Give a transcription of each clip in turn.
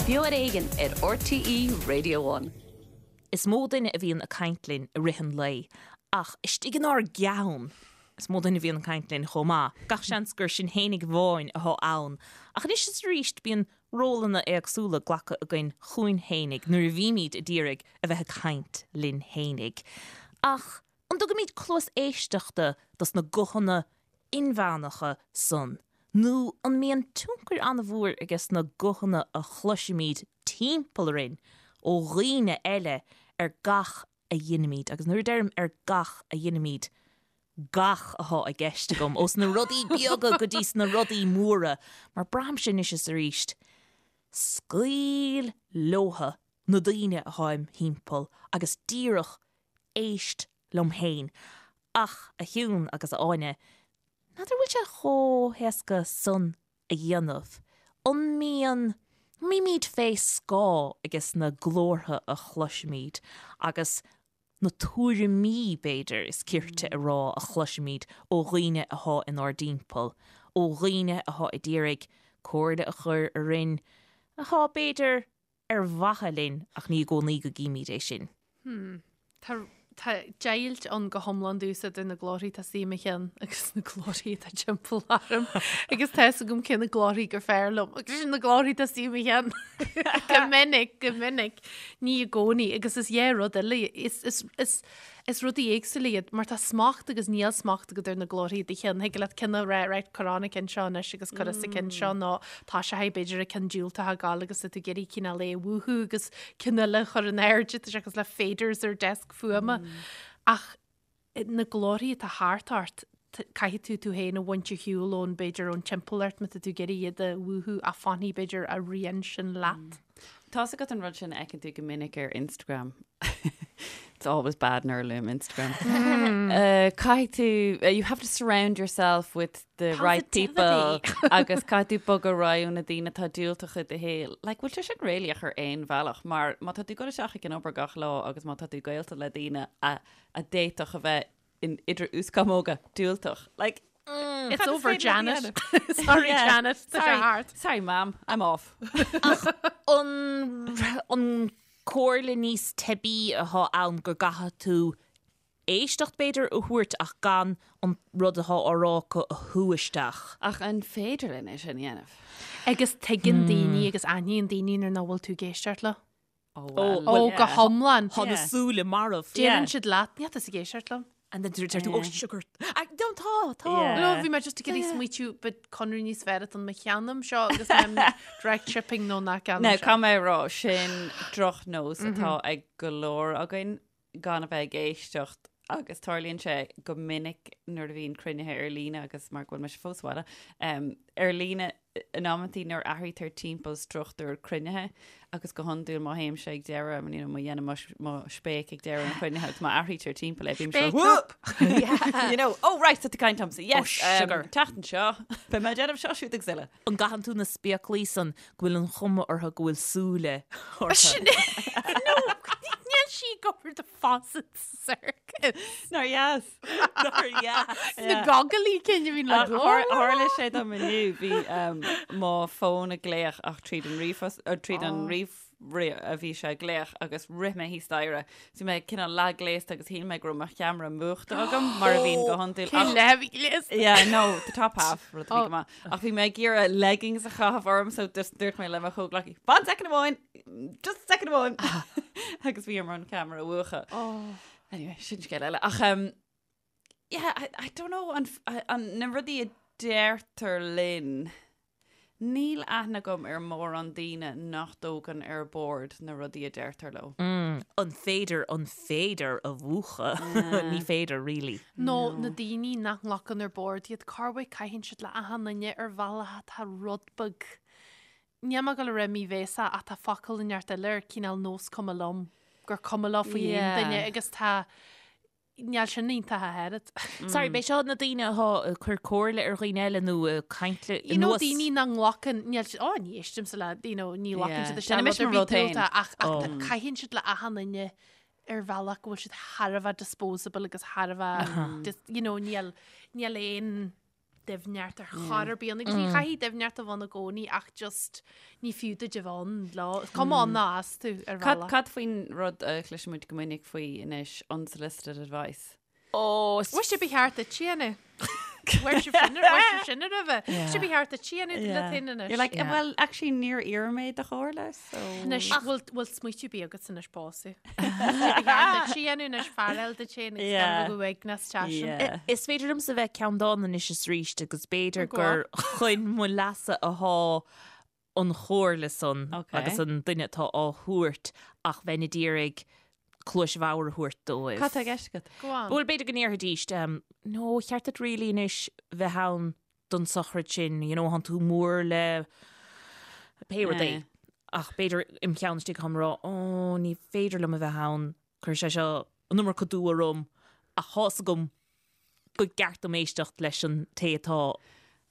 Beo ar Éigean ar RTÉ Radio One. Is mó duine a bhíonn ag caint linn i rith an lae, ach istigh inár gceann, is mó duine a bhíonn ag caint linn chomh maith. Gach seans gur sinn fhéinig amháin atá ann, ach anois is arís bíonn rólanna éagsúla glactha againn chugainn fhéinig nuair a bhímid a d'iarraidh a bheith ag caint linn fhéinig. Ach An dtugaimid cluas éisteachta dos na guthanna inmheánacha san nó an mbíonn tionchar an-mhór ages na guthanna a chloisimid timpeall orainn ó dhaoine eile ar gach a dheinimid, agus nuair a deirim ar gach a dheinimid, gach athá i gceist agam, ós na rudaí beaga go dtí sna rudaí móra, mar braithimse anois is arís, scaoil leotha na daoine athá im thimpeall agus díreach éist liom féin. Ach, a Shiún agus a Áine, n'fheadar bhfuil sé chomh héasca san a dhéanamh. An mbíonn, an mbímid fé scáth ages na glórtha a chloisimid agus na tuairimí, b'fhéidir, is cirte a rá, a chloisimid ó dhaoine athá inár dtimpeall, ó dhaoine athá a d'iarraidh comhairle a chur orainn, athá, b'fhéidir, ar mhaithe linn ach ní i gcónaí go gcímid é sin. Hmm. Tá tá deighilt ann go hiomlán domhsa idir na glórthaí atá istigh i mo cheann agus na glórthaí atá timpeall orm agus tá fhios agam cé na glórthaí gur fearr liom agus sin na glórthaí atá istigh i mo cheann. Go minic, go minic, ní i gcónaí agus is é rud eile is, is, is, Is rudaí éagsúla iad, mar tá smacht agus níl smacht agat ar na glórthaí i do cheann. Thig leat ceann a rá, right, cuir an ceann seo anois agus cuir sa ceann seo nó tá sé b'fhéidir an ceann diúltach ag gabháil agus tá tú ag iarraidh cineál é a mhúchadh agus ceann eile a chur in airde, tá sé cosúil le faders ar deasc fuaime. Ach na glórthaí atá thart ort, caithfidh tú tú féin a bhaint ar shiúl ón, b'fhéidir, ón timpeallacht má tá tú ag iarraidh iad a mhúchadh ach fanfaidh, b'fhéidir, a rian sin leat. Tá's agat an rud sin a fheiceann tú go minic ar Instagram. It's always bad nuair a luaim Instagram. Uh, caithfidh tú, uh, you have to surround yourself with the right people agus caithfidh tú bogadh ar aghaidh ó na daoine atá diúltach i do shaol. Like, bhfuil sé sin réalaíoch ar aon bhealach, mar má tá tú ag dul isteach ag an obair gach lá agus má tá tú gaolta le daoine a, a d'fhéadfadh a bheith in idir uaschamóga diúltach. Like, It's over, Janet. Sorry, Janet. Tá sé thart. Sorry, mam. I'm off. Ach an, an comhairle níos teibí atá ann go gcaithfidh tú éisteacht b'fhéidir a thabhairt ach gan an rud atá á rá acu a shú isteach. Ach an féidir linn é sin a dhéanamh? Agus tuigeann daoine agus aithníonn daoine nuair nach bhfuil tú ag éisteacht leo. Ó, well, Ó, go hiomlán. Tá na súile marbh. Deireann siad leat, níl tusa ag éisteacht liom. And then deir tú, oh sugar. Ah, don't, tá, tá. Yeah. No, bhí mé just ag iarraidh smaoitiú ba conradh níos fearr atá ann má cheannaím seo agus mé direct shipping nó nach gceannaím Now, seo. caithfidh mé a rá, sin drochnós atá ag go leor againn gan a bheith ag éisteacht agus tarlaíonn sé go minic nuair a bhíonn cruinnithe ar líne agus mar go bhfuil mise fós sa bhaile, um, ar líne in amantaí nuair athraítear timpeall struchtúr cruinnithe agus go hiondúil má théimse ag deireadh, you know, má dhéanaim mo, mo spéic ag deireadh an chruinnithe agus má athraítear timpeall é, bím Spéic "Whoop!" You know, oh right, tá tú ag caint liomsa, yes, Oh, sugar. um, teacht anseo, beidh mé ag déanamh seo siúd agus eile. An gcaitheann tú na spéaclaí san go bhfuil an chuma orthu go bhfuil súile orthu? Sin é. No, níl sí ag obair do Fawcett Circus. Nár dheas. Nár dheas. Na gogailí cinn a bhíonn le glór. Tharla sé dom inniu, bhí um, mo fón ag glaoch ach tríd an ríomhphost, uh, tríd an ríomh a bhí sé ag glaoch agus rith mé thíos staighre. So bhí mé cineál leathghléasta agus shíl mé go raibh mo cheamara múchta agam mar a bhíonn go hiondúil. Cén leath a bhí gléasta? Yeah, no, the top half, rud a bhí go maith. Ach bhí mé ag iarraidh leggings a chaitheamh orm so just dúirt mé le mo chomhghleacaí, fan second amháin, just second amháin. Agus bhí orm an ceamara a mhúchadh. Anyway, sin scéal eile. Ach um, yeah, I, I don't know, an, an, na rudaí a deirtear linn, níl aithne agam ar mórán daoine nach dtógann ar bord na rudaí a deirtear leo. An féidir an féidir a mhúchadh? Ní féidir, really. Nó na daoine nach nglacann ar bord iad, corruair caitheann siad le achan duine ar bhealach atá rud beag. Níl mé ag dul a rá míbhéasach ach tá focal inteacht eile ar cineál nós cuma liom, gur cuma leo faoi aon duine agus tá Níl sin iontach ach oiread. Sorry, b'é seo na daoine atá ag cur comhairle ar dhaoine eile nó ag caint le You know, anuas. daoine nach nglacann, níl siad, oh, ní éistimse le, you know, ní ghlacann Yeah. siad isteach Déanaim rud ar mo bith rud féin. diúltach ach, ach oh. caitheann siad le achan duine ar bhealach go bhfuil siad thar a bheith disposable agus thar a bheith, just, you know, níl, níl aon. doimhneacht ar chor ar bith ann agus ní chaithfidh doimhneacht a bheith ann i gcónaí ach just ní fiú duit a bheith ann lá, is cuma ann ná as tú ar Cad, bhealach. cad faoin rud a chloiseann muid go minic faoi anois, unsolicited advice? Ó, is Bhuel, sé ba cheart duit a dhéanamh. Bhuel sibh sin bhuel sibh sin roimhe. Sé ba cheart duit a dhéanamh leat féin anois. You're like, Yeah. well, actually níor iarr mé do chomhairle, so... Anois, bhfuil bhfuil smaoitiú bí agat anois básaí. Sé ba cheart duit a dhéanamh anois fear eile duit féin agus Yeah. gan bheith uaigneas teasin. Yeah. Is féidir liomsa bheith ceanndána anois is arís agus b'fhéidir Go gur chun mo leasa athá an chomhairle san Ok. agus an duine atá á thabhairt ach bheinn ag iarraidh cluais bhodhar a thabhairt dóibh. Cad tá i gceist agat? Go on. Bhuel, b'fhéidir go ndéarfaidís, no, cheart duit really anois bheith ann don sochraid sin, you know, thánn tú mór le pé rud é. Yeah. Ach b'fhéidir im cheann istigh táim ag rá, oh, ní féidir liom a bheith ann, cuirfidh sé seo an iomarca dua orm, ach tá's agam go gceart dom éisteacht leis an té atá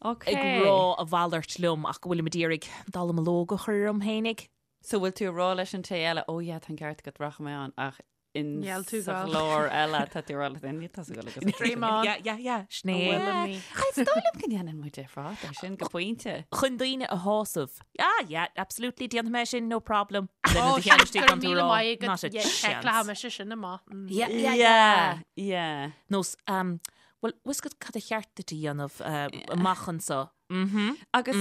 Ok. ag rá a mhalairt liom ach go bhfuilim ag iarraidh dallamullóg a chur orm fhéinig. So bhfuil tú ag rá leis an té eile, oh yeah, tá an ceart agat, rachaidh mé ann, ach in Níl tú sa gal. ghlór eile tá tú ag rá leat féin, níl tusa ag dul agus Dream on. Yeah, yeah, yeah, sin é. Bhfuil mé. Is dóigh liom go ndéanann muid ar fad é sin go pointe. Chun daoine a shásamh. Ah, yeah, absolutely, déanfaidh mé sin, no problem. Lena Oh, do cheann sin istigh go gan tú míle rá, maith agat. Not a Yeah, chance. Check mise sin amach. Mm. Yeah, yeah, yeah. Yeah. Nós, um, well, bhfuil 's agat cad a cheart duit a dhéanamh uh, amach anso. Mhm. Agus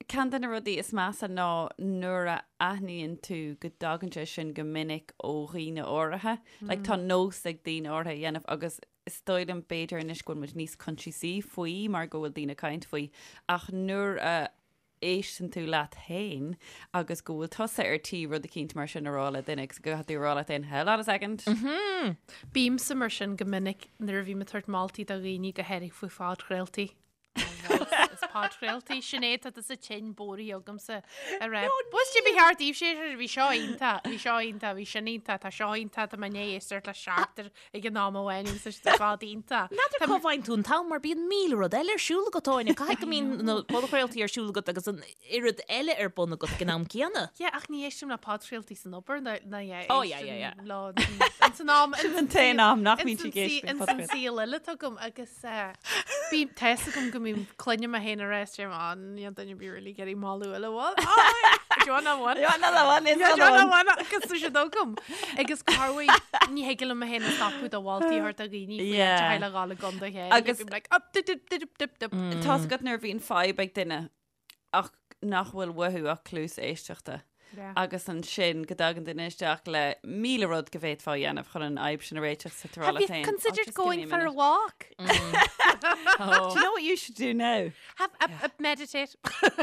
ceann de na rudaí is measa ná nuair a aithníonn tú go dtagann sé sin go minic ó dhaoine áirithe. Like, tá nós ag daoine áirithe a dhéanamh agus is dóigh liom b'fhéidir anois go bhfuil muid níos coinsiasaí faoi mar go bhfuil daoine ag caint faoi ach nuair a éisteann tú leat féin agus go bhfuil tusa ar tí rud eicínt mar sin a rá le duine agus go gcaithfidh tú a rá leat féin, hold on a second. Bímse mar sin go minic nuair a bhím ag tabhairt moltaí do dhaoine go háirithe faoi phodchraoltaí. Is podchraoltaí, Sinéad, tá tusa tinn bodhraithe agamsa a rá. Bhuel ba cheart daoibh sé bhí seo iontach, bhí seo iontach, bhí sin iontach, tá seo iontach, tá mé i ndiaidh éisteacht le seachtar ag an am amháin agus tá siad ar fad iontach. N'fheadar cá bhfaigheann tú an t-am mar bíonn 1000 rud eile ar siúl agat, Áine. Caithfidh go mbíonn na podchraoltaí ar siúl agat agus an oiread eile ar bun agat ag an am céanna. Yeah, ach ní éistim le podchraoltaí san obair ná ná yeah, Oh, yeah, yeah, yeah. éistim leo ins an am Sin an t-aon am nach mbíonn sí ag éisteacht le ins an podchraoltaí. saol eile atá agam agus eh, bím tá 'fhios agam go mbím cluinim mé féin ag rá is deirim, "Á, níl duine ar bith really ag iarraidh moladh eile bhfuil? Á, do you want that one? You want another one? It's Yeah, do you another want one. that one? Agus tá siad agam. Agus corruair ní thig liom mé féin a stopadh do mholtaí a thabhairt do dhaoine faoi Yeah. áit a le dhul i gcontae chéile. Agus- Bím like, up, dip, dip, dip, dip, dip. Tá's agat nuair a bhíonn fadhb ag duine ach nach bhfuil uathu ach cluas éisteachta. Yeah. Agus ansin go dtagann duine isteach le 1000 rud go bhféadfá a dhéanamh chun an fhadhb sin a réiteach sa tú ag rá Have leat you féin, "Oh, considered just give going me a for a minute." walk? Do you know what you should do now? Have a, a meditate.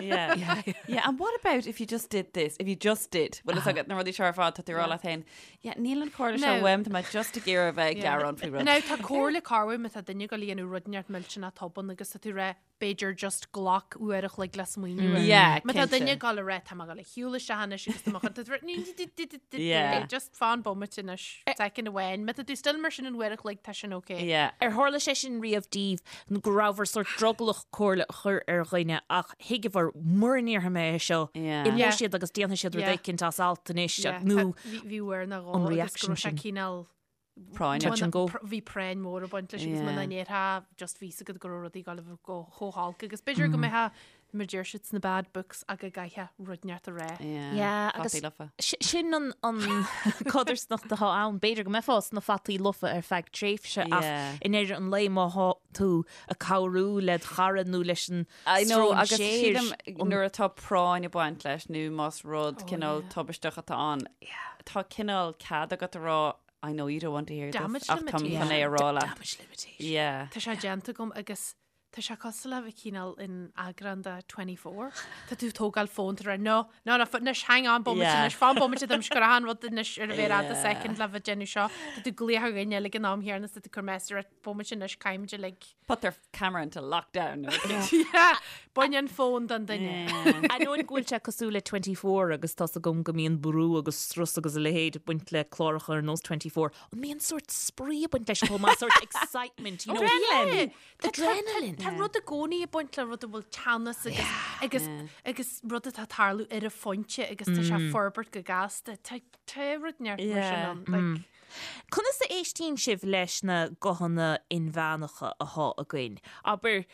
Yeah. Yeah, and what about if you just did this? If you just did? Well, is agat na rudaí seo ar fad tá tú ag rá leat féin. Yeah, níl an chomhairle seo No. uaim, tá mé just ag iarraidh a bheith ag gearán faoi rud. Now tá comhairle corruair má tá duine ag gabháil a dhéanamh rud inteacht millteanach tobann agus tá tú ag rá b'fhéidir just glac uair a chloig le smaoineamh air. Yeah, Má tá cinnte. duine ag gabháil a rá tá mé ag gabháil a shiúl isteach anois agus tá mé chun- tá tú ag rá, Yeah. Just fan bomaite anois, second amháin. Má tá tú still mar sin an uair a chloig tá sin okay. Yeah. Ar tharla sé sin riamh daoibh nó go rabhabhair sórt drogallach comhairle a chur ar dhuine ach thuigeabhair mura ndéarfaidh mé é seo, Yeah. imeoidh Yeah. siad agus déanfaidh siad rud Yeah. éicint as alt anois Yeah, nó tá- bhí bhí uair nó dhó an agus go reaction raibh sé sin. cineál Práinne. Touch and go. Bhí práinn mhór ag baint leis agus Yeah. muna ndéarfá just bhí 's agat go raibh rudaí ag gabháil a bheith go chomh holc agus b'fhéidir go mbeifeá mar deir siad sna bad books ach go gcaithfeá rud inteacht a rá. Yeah. Yeah, agus- Fataí lofa. Si- Sin an an codarsnacht atá ann, b'fhéidir go mbeifeá sna fataí lofa ar feadh tréimhse ach Yeah. i ndeireadh an lae má thá tú ag cabhrú le do chara nó leis an I know, agus stróinséir sílim nuair atá práinn ag baint leis nó más rud cineál tubaisteach atá ann, tá cineál cead agat a rá I know you don't want to hear Damage this ach táim limitation. chun é a rá leat. Damage limitation. Yeah. Tá sé déanta agam agus tá sé cosúil le bheith cineál in eagrán de 24. Tá tú ag tógáil fón tá rá no, no, no, anois hang on bomaite Yeah. anois, fan bomaite dom go raibh an rud anois ar a mhéar fhada Yeah. second le bheith déanamh seo. Tá tú ag glaoch ar dhuine eile ag an am chéanna is tá tú ag cur message ar bomaite anois caithfimid uilig. Put their camera into lockdown. Yeah, Bain an fón den duine. Ainneoin go bhfuil sé cosúil le 24 agus tá's agam go mbíonn brú agus strus agus a leithéid ag baint le cláracha ar nós 24, an mbíonn sórt spraoi ag baint leis chomh maith, sórt excitement, you know, Yeah. Tá- tá- Adrenaline. Tá rud i gcónaí ag baint le rud a bhfuil teannas agus agus agus rud atá ag tarlú ar an phointe agus tá sé ag forbairt go gasta. Tá tá rud neart mar sin Yeah. ann. Like, Conas a éistíonn sibh leis na guthanna inmheánacha athá againn? Abair,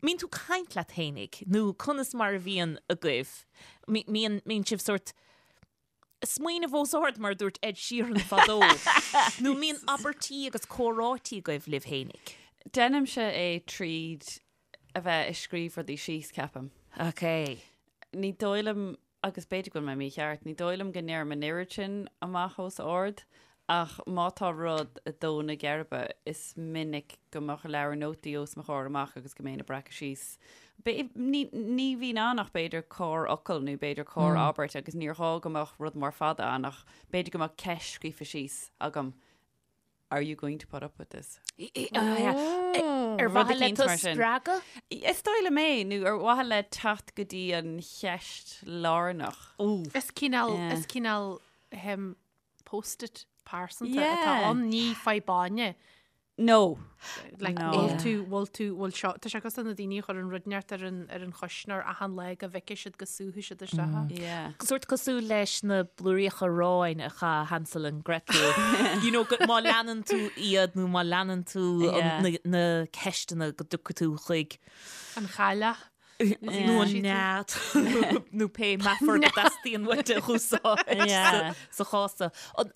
Mbíonn tú caint leat fhéinig nó conas mar a bhíonn agaibh? Mbíonn, mbíonn sibh sórt smaoineamh os ard mar a dúirt Ed Sheeran fadó nó mbíonn abairtí agus comhráití agaibh libh fhéinig? Déanaimse é tríd a bheith ag scríobh rudaí síos, ceapaim. Ok. Ní dóigh liom agus b'fhéidir go bhfuil mé mícheart, ní dóigh liom go ndeirim an oiread sin amach os ard, ach má tá rud ag dó na geirbe, is minic go mbeadh leabhar nótaí os mo chomhair amach agus go mbeinn ag breacadh síos. Ní, ní bhíonn ann ach b'fhéidir corrfhocal nó b'fhéidir corr-abairt agus níor ghá go mbeadh rud mór fada ann ach b'fhéidir go mbeadh ceist scríofa síos agam Are you going to put up with this? Ar mhaithe le tú a spreagadh? Is dóigh liom é, nó ar mhaithe le teacht go dtí an cheist lárnach. Is cineál, is cineál ahem, post-it pearsanta atá ann, ní fadhb No. Like, No. bhfuil tú, bhfuil tú, bhfuil seo, tá sé cosúil na daoine a chuireann rud inteacht ar an, ar an chuisneoir achan lá go bhfeicfidh siad go súfaidh siad isteach é. Yeah. Sórt cosúil leis na blúiríocha aráin a chaith Hansel and Gretel. You know, go, má leanann tú iad nó má leanann tú an, Yeah. na, na ceisteanna go dtiocfaidh tú chuig An chailleach. nó an nead nó pé meafar go dteastaíonn uait a úsáid sa chás seo.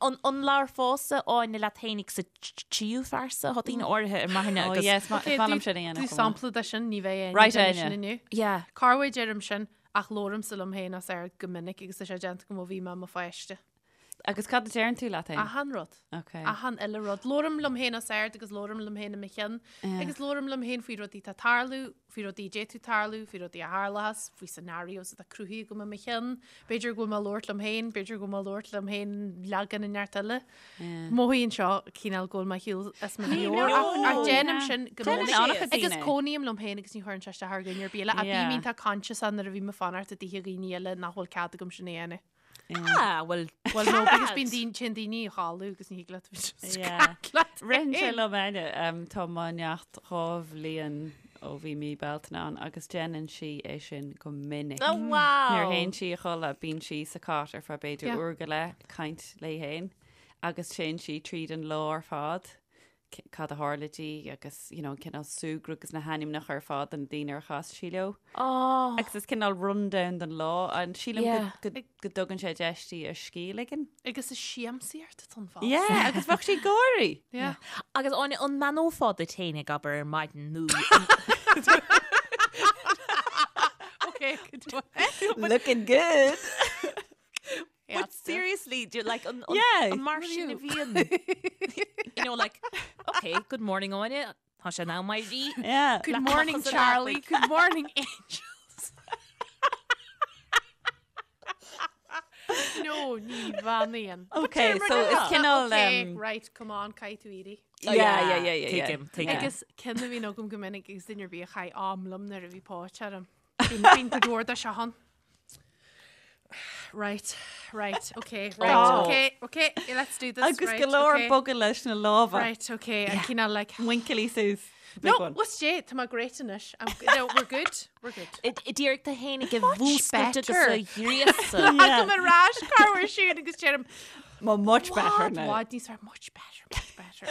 An labharfása Áine leat fhéinig sa tríú phearsa? Tá daoine áirithe ar m'aithne agus... Oh yes, is maith liom sin a dhéanamh. Tú sampla de sin, ní bheidh aon duine sin inniu. Yeah. Corruair deirim sin ach labhraímse liom féin os ard go minic agus tá sé déanta agam ó bhí mé i mo pháiste. Agus cad a deireann tú leat féin? Achan rud. Ok. Achan uile rud. Labhraím liom féin os ard agus labhraím liom féin i mo cheann. Agus labhraím liom féin faoi rudaí atá ag tarlú, faoi rudaí a d'fhéadfadh tarlú, faoi rudaí a tharlóchas, faoi scenarios atá cruthaithe agam i mo cheann. B'fhéidir go bhfuil mé ag labhairt liom féin, b'fhéidir go bhfuil mé ag labhairt liom féin leagan inteacht eile. Mothaíonn seo cineál go bhfuil mé ar shiúl as mo mheabhair ach ach déanaim sin go minic. Agus cónaím liom féin agus ní chuireann sé isteach ar dhuine ar bith eile. Ach bím iontach conscious nuair a bhím ag fanacht i dtithe dhaoine eile nach bhfuil cead agam sin a dhéanamh. Ah, well, Well, no, because bíonn daoine, téann daoine a chodladh agus ní thig leat bheith just Yeah. caint leat Ritheann sé féin. liom Áine, um, tá mo neacht 2 bhliain ó bhí mí Bealtaine ann agus déanann sí é sin go minic. Oh, wow. Nuair a théann sí a chodladh, bíonn sí sa cot ar feadh b'fhéidir Yeah. uair go leith ag caint léi féin agus téann sí tríd an lá ar fad. cad a tharla di agus you know, an cineál súgradh agus na hainmneacha ar fad de na daoine ar chas sí leo. Oh. Agus is cineál rundown den lá an sílim Yeah. go, go, go dtugann sé deis di a scíth a ligean. Agus is siamsaíocht atá ann fosta. Yeah, agus bheadh sí ag gáirí. Yeah. Agus Áine, an mbeannófá duit féin ag abair ar maidin nó Okay, good one. Looking good. But seriously, do you like an, an, Yeah. an mar sin a bhíonn? You know, like, okay, good morning, Áine. Tá sé in am éirí. Yeah. Good morning, Charlie. Good morning, angels. No, ní bheannaím. Okay, so is cineál, Okay, um, right, come on, caithfidh tú éirí. Yeah, yeah, yeah, yeah, yeah. Tuigim, tuigim. Agus ceann a bhíonn agam go minic agus duine ar bith a chaith am liom nuair a bhí póit orm. Bíonn go leor de seo ann. Right, right, okay, right, Oh. okay, okay, yeah, let's do this. Agus right, go leor okay. bogadh leis na lámha. Right, okay, yeah. cineál like... Muinchillí suas. Big No, one. what's Jay? Tá mé great anois. I'm, no, we're good, we're good. D'iarraidh tú féin a mhúscailt agus better. a ghríosadh. Tagaim ar ais corruair siúd agus deirim, Well, much better What, now. what, níos fearr, much better, much better.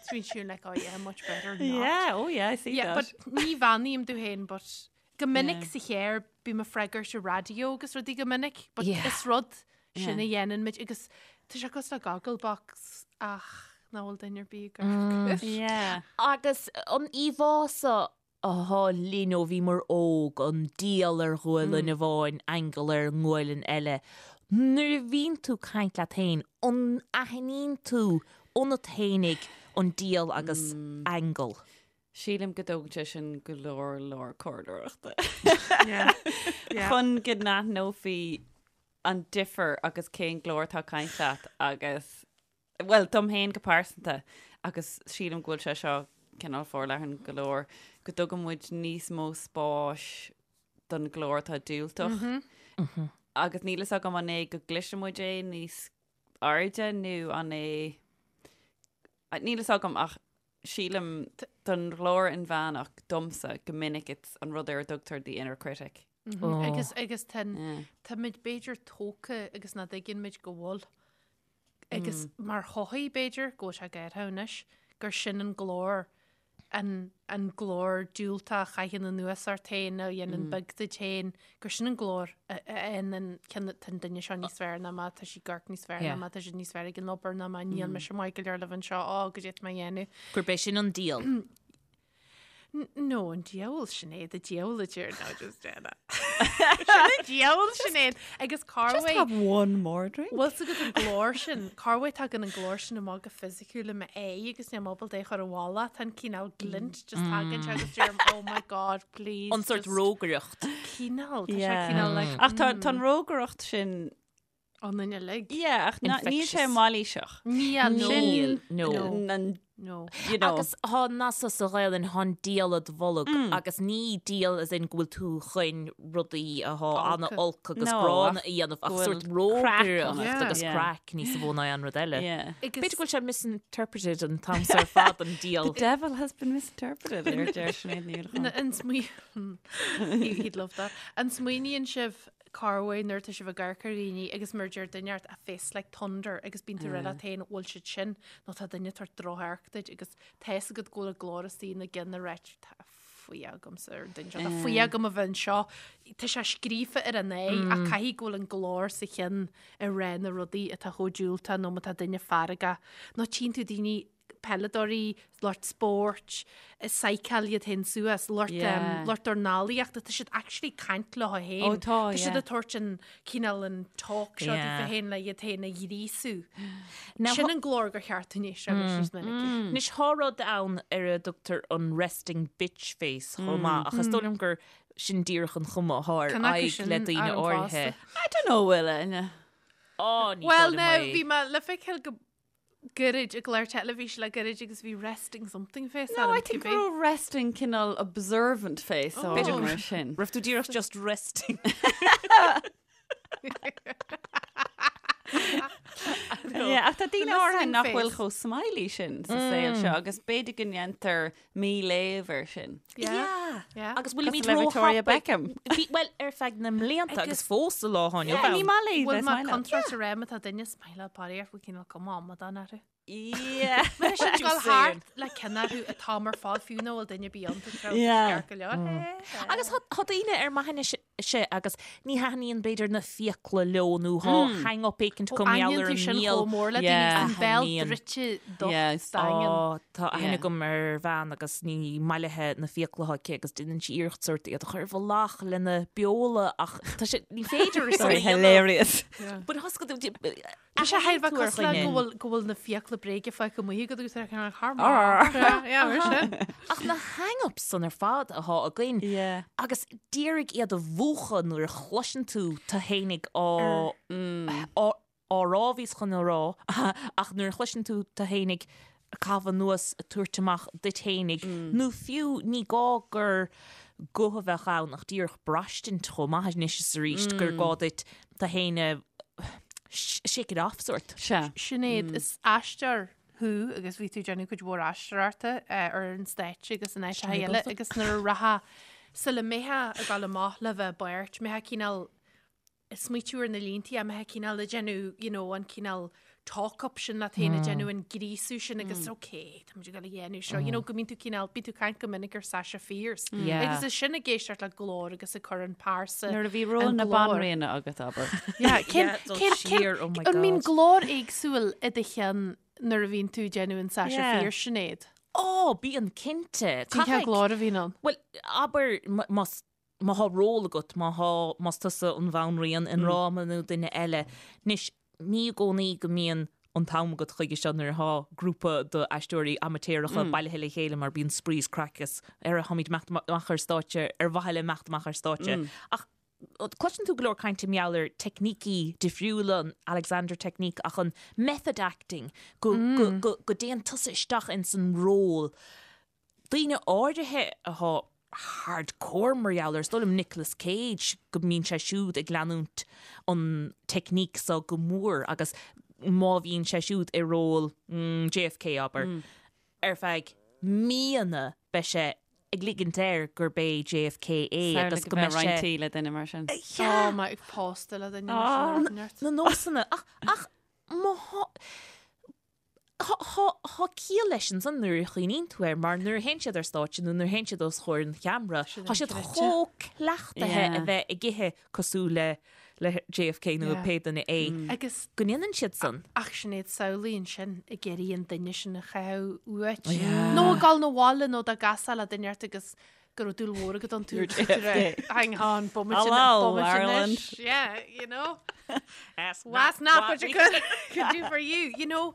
So bíonn siúd like, oh yeah, much better not. Yeah, oh yeah, I see Yeah, that. but ní bheannaím domh féin, but go minic Yeah. sa chéir bím ag freagairt ar raidió agus rudaí go minic, but Yeah. is rud sin Yeah. a dhéanann muid agus tá sé cosúil le Gogglebox ach nach bhfuil duine ar bith ag amharc. Yeah. Agus an íomhá seo atá linn ó bhíomar óg, an diabhal ar ghualainn amháin, aingeal ar an ngualainn eile. Nuair a bhíonn tú ag caint leat féin, an aithníonn tú ionat féinig an diabhal agus aingeal? Sílim go dtógann sé sin go leor leor comhairleoireachta. Yeah. Yeah. Chun go n-aithneofaí an difear agus cén glór atá ag caint leat agus, bhuel, dom féin go pearsanta agus sílim go bhfuil sé seo cineál forleathan go leor, go dtugann muid níos mó spáis don ghlór atá diúltach. Agus níl fhios agam an é go gcloiseann muid é níos airde nó an é... Níl fhios agam ach sílim don ghlór inmheánach domsa go minic it's an rud ar a dtugtar the inner critic. Agus agus tá tá muid b'fhéidir tógtha agus nach dtuigeann muid go bhfuil. Agus mar shochaí b'fhéidir go bhfuil sé gairithe anois gur sin an glór an an glór diúltach a chaitheann anuas ort féin nó a dhéanann beag duit féin, gur sin an glór a fhaigheann an tá an duine seo níos fearr ná mé, tá sí ag amharc níos fearr ná mé, tá siad níos fearr ag an obair ná mé, níl mise maith go leor le bheith anseo, á, goidé tá mé a dhéanamh. Gurb é sin an diabhal. No, an diabhal Sinéad, an diabhal a deir no, just déana. Sin an diabhal Sinéad agus Just have one more drink. Bhfuil fhios agat an glór sin, cá bhfuil tagann an glór sin amach go fisiciúil i m'aghaidh agus níl mé ábalta é a chur i bhfolach, tá an cineál glint just tagann sé agus deirim oh my god please. An sort rógaireacht. Cineál, tá sé cineál like. Ach tá an rógaireacht sin Ionainn uilig. Yeah, ach níl sé mailíseach. Níl, no. Sin No. an, No. you know. Agus thá nath sa Ghaelainn, thá an diabhal id bholg agus ní diabhal as in go bhfuil tú chun rudaí athá ana-olc agus No, gránna ach a dhéanamh ach go bhfuil sórt craic rógaireacht ionat. agus Yeah. craic níos mó ná aon rud eile. Yeah. B'fhéidir go bhfuil sé misinterpreted an t-am so ar fad an diabhal. The devil has been misinterpreted, ar deir Sinéad Ní Uallacháin. An smaoi- He'd love that. An smaoiníonn sibh Corruair nuair atá sibh ag amharc ar dhaoine agus mar a deir duine ort a face like thunder agus bíonn tú ag rá leat féin bhfuil siad sin nó tá duine ag tabhairt drochamharc duit agus tá fhios agat go bhfuil an glór istigh ina gceann ag ráit tá fuath agamsa ar an duine seo, tá fuath agam a bheith anseo. Tá sé scríofa ar an aghaidh ach caithfidh go bhfuil an glór sa cheann ag rá na rudaí atá chomh diúltach nó má tá duine feargach nó tchíonn tú daoine peileadóirí, lucht spóirt, ag psycháil iad féin suas, lucht Yeah. lucht dornálaíochta, tá siad actually ag caint leo féin. Ó, tá, Tá siad yeah. ag tabhairt an cineál an talk seo Yeah. daofa féin le iad féin a ghríosú. Now, Sin an glór gur cheart dúinn éisteacht leis níos minice. Anois thá rud ann ar a dtugtar an resting bitch face chomh maith ach is dóigh liom gur sin díreach an chuma athá ar Cén acu aghaidh sin le daoine ar an áirithe. bhfásta? I don't know, bhfuil Áine. Ó, ní Well, dóigh liom now, é. bhí mé le feiceáil go gairid i gclár teilifíse le gairid agus bhí resting something face No, orm, I think cibé. go raibh resting cineál observant face Oh. orm mar sin. Raibh tú díreach just resting. Yeah, ach tá daoine The áirithe listening nach bhfuil face. chomh smiley sin sa saol seo agus b'fhéidir go ndéantar míléamh air sin. Yeah. Yeah. Agus bhfuilimid Cosúil le Victoria róthapaidh- Beckham. Bhí, well, ar feadh na mblianta agus fós sa lá atá inniu Yeah, ní ann. maith léi Bhfuil bheith mé smiley. contráilte rem atá duine smiley parí bhfuil cineál cuma amadán orthu. Yeah. Mar sin Just gabháil saying. thart le ceann orthu atá mar fad fiú nach bhfuil duine bíonn Yeah. go leor. Agus thá thá daoine ar m'aithne se agus ní thaitníonn b'fhéidir na fiacla leo nó thá hang up éicint acu mar gheall Aithníonn ar tú an sin mbéal. chomh mór le daoine Yeah. an béal Aithníonn. druidte docht Yes. daingean. Ó, tá aithne Yeah. agam ar bhean agus ní maith léithe na fiacla atá aici agus déanann sí iarracht sórt iad a chur i bhfolach lena beola ach tá sé ní féidir é san Sorry, a dhéanamh. hilarious. But thá go Tá sé thar a bheith tú ar cosúil le dhuine. go bhfuil go bhfuil na fiacla bréige fágtha amuigh agat agus ar ceann thar Arr. Yeah, mar sin. Ach na hang-ups san ar fad athá againn. Yeah. Agus d'iarraidh iad a mhúchadh nuair a chloiseann tú tú fhéinig á á á rá bhíos chun a rá ach nuair a chloiseann tú tú fhéinig ag caitheamh anuas ag tabhairt amach duit fhéinig nó fiú ní gá gur guth a bheadh ann ach díreach braistint chomh maith anois is arís gur gá duit tú fhéin a shake it off sórt. Sea. Sinéad, is aisteoir thú agus bhí tú ag déanamh cuid mhór aisteoireachta ar an stáitse agus in áiteacha eile agus nuair a rachfá sula mbeifeá ag dul amach le bheith i bpáirt, mbeifeá cineál ag smaoitiú ar na líntí, mbeifeá cineál ag déanamh you know an cineál talk up sin leat féin, ag déanamh an gríosú sin agus ok, tá muid ag dul a dhéanamh seo, you know go mbíonn tú cineál, bíonn tú ag caint go minic ar Sasha Fierce Yeah. agus is sin ag éisteacht le glór agus ag cur an pearsa Nuair a bhí ról an na glór. banríona agat abair. Yeah, cén, Yeah, dul cén, cén, siar, oh my an mbíonn God. glór éagsúil i do cheann nuair a bhíonn tú ag déanamh an Sasha Yeah. Fierce Sinéad? Ó, bíonn cinnte. Cén cén Caithfidh- glór a bhíonn ann? Well, abair más má thá ról agat, má thá, más tusa an bhanríon i ndráma nó duine eile. Anois, ní i gcónaí go mbíonn an t-am agat chuige seo nuair athá grúpa d'aisteoirí amaitéaracha bailithe le chéile mar bíonn spraoi is craic is ar tháimid imeacht amach ar stáitse ar mhaithe le imeacht amach ar stáitse. Ach cloiseann tú go leor cainte mar gheall ar teicnící difriúla, an Alexander Technique ach an method acting, go, go, go, go dtéann tusa isteach ins an ról. Daoine áirithe athá hardcore mar gheall air, is dóigh liom Nicolas Cage, go mbíonn sé siúd ag leanúint an teicníc so go mór agus má bhíonn sé siúd i ról JFK, abair, ar feadh míonna beidh sé ag ligint air gurb é JFK é agus go mbeidh sé. Roinnt tí le duine mar sin. Tá mé ag pósta le duine mar sin. Na nósanna ach ach má thá. Tá ciall leis ansan nuair a chuimhníonn tú air mar nuair a théann siad ar stáitse nó nuair a théann siad os comhair an cheamara, tá siad chomh cleachtaithe a bheith ag ithe cosúil le le JFK nó pé duine é Agus go ndéanann siad san. Ach Sinéad, samhlaigh ansin ag iarraidh an duine sin a chaitheamh uait. Nó ag dul 'na bhaile nó dá gcasfá le duine ort agus go raibh dúil mhór agat iontu. Hang on, bomaite Hello, bomaite Ireland. anois. Yeah, you know. Ask That's not what you could, could do for you, you know.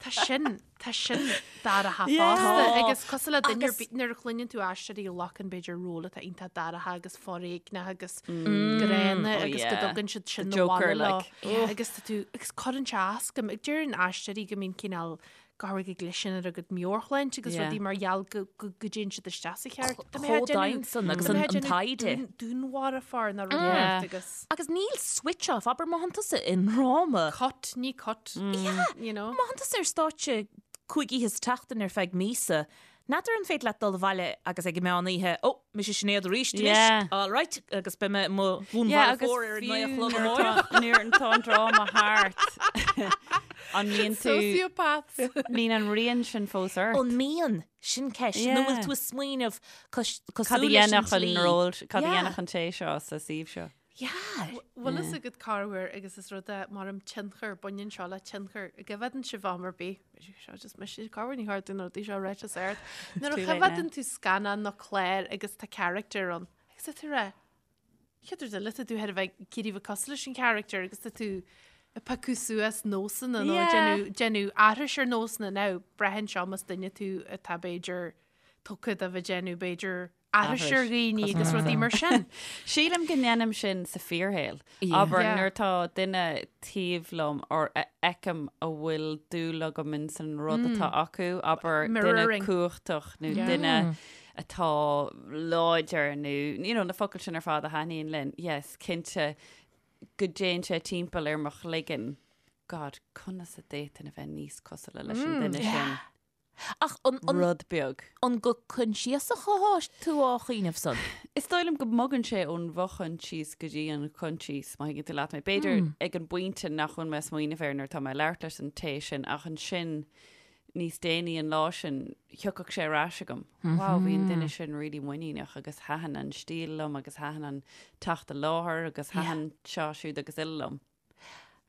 Tá sin, tá sin dorcha fosta. Agus cosúil le duine ar bith nuair a chluineann tú aisteoirí a ghlacann b'fhéidir ról atá iontach dorcha agus foréigneach agus gránna Oh, agus go yeah. dtugann siad sin The na Joker, bhaile leo. like. Agus tá tú, agus cuireann sé as dom, ag deireann aisteoirí go mbíonn cineál go háirithe go gcliseann ar a gcuid meabhairshláinte agus Yeah. rudaí mar gheall go go go dtéann siad isteach sa cheart. Tá mé Chomh ag déanamh- domhain san agus tá mé an ag an déanamh taighde. dún- Dúnmharfóir nó rud Yeah. éigin agus Agus níl switch off, abair má thánn tusa i ndráma. cut, ní cut, you know. Má thánn tusa ar stáitse 5 oíche sa tseachtain ar feadh míosa, n'fheadar an féidir leat dul abhaile agus ag an meán oíche, ó, mise Sinéad arís anois, Yeah. all right, agus beidh mé i mo Yeah, agus dhúnmharfóir ar an 9 a fiú chlog nuair amárach. atá- nuair atá an dráma thart, an mbíonn tú, Sociopaths. mbíonn an rian sin fós ort? An mbíonn? Sin ceist. Nó Yeah. bhfuil tú ag smaoineamh Cad a cosúil leis an dhéanfadh an tslí? ról, cad a Yeah. dhéanfadh an té seo sa suíomh seo? Yeah. Bhfuil fhios agat corruair agus is rud é mar an tionchar, baineann seo le tionchar. An gcoimhéadann sibh am ar bith. Seo just mise corruair ní tharlaíonn na rudaí seo ráite is ard. Nuair a Too late choimhéadann tú scannán nó clár agus tá character ann agus tá tú ag rá chéad rud eile tá tú thar a bheith ag iarraidh bheith cosúil leis an character agus tá tú ag piocadh suas nósanna nó Yeah. déanamh déanamh aithris ar nósanna now braitheann seo más duine tú atá b'fhéidir tugtha do bheith déanamh b'fhéidir aithris ar dhaoine agus rudaí mar sin. Sílim go ndéanaim sin sa fíorshaol. Abair Yeah. nuair atá duine taobh liom or a fheicim a bhfuil dúil agam in san rud atá acu, abair duine Mirroring. cumhachtach nó Yeah. duine atá láidir nó you know, na focail sin ar fad a thaitníonn linn. Yes, cinnte go dtéann sé timpeall ar mo chloigeann. God, conas a d'fhéadfainn a bheith níos cosúla leis an duine sin. Ach an, an, Rud beag. an go coinsiasach atá tú á chuimhneamh san? Is dóigh liom go mbogann sé ón bhfochoinsias go dtí an coinsias, má thuigeann tú leat mé. B'fhéidir ag an bpointe nach bhfuil mé ag smaoineamh air nuair atá mé ag labhairt leis an té sin, ach ansin níos déanaí an lá sin, thiocfadh sé ar ais agam. Wow, bhí an duine sin really muiníneach agus thaitin an stíl liom agus thaitin an teacht i láthair agus thaitin seo siúd agus uile liom.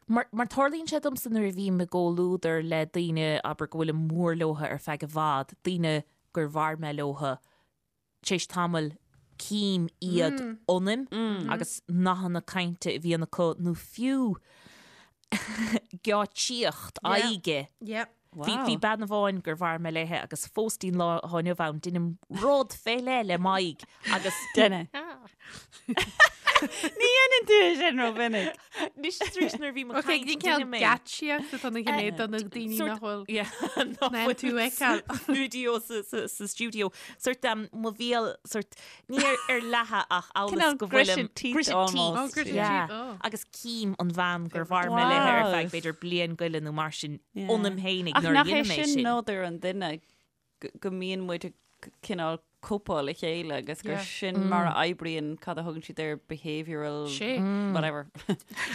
Mar, mar tarlaíonn sé domsa nuair a bhím i gcomhluadar le daoine, abair, go bhfuilim mór leotha ar feadh i bhfad, daoine gur mhair mé leotha, tar éis tamaill cím iad ionaim agus nathanna cainte a bhíonn acu nó fiú geáitsíocht aghaidhe. Yep. Bhí, bhí bean amháin gur mhair mé léithe agus fós dtí'n lá atá inniu ann, deinim rud fé leith le m'aghaidh agus Duine. Ní dhéanann tú é sin rómhinic. Anois is arís nuair a bhím ag Ok, caint, ní ceann deinim é. geáitsíocht atá na gné do na daoine Sort- nach bhfuil. Yeah, nach Ná bhfuil tú ag feiceáil. Studio sa, sa, sa studio. Sort um, mo bhéal sort ní ar, ar leathadh ach amhail is Cineál go bhfuilim gritted teeth gritted almost. teeth. Oh, gritted Yeah. teeth, oh. Agus cím an bhean gur mhair mé léithe ar Wow. feadh b'fhéidir bliain go leith nó mar sin Yeah. ionam fhéinig Ach nuair a nach é dhéanaim é sin sin. nádúr an duine go go mbíonn muid ag cineál cóipeáil a chéile agus gur Yeah. sin mar a oibríonn cad a thugann siad ar behavioural Sé. whatever.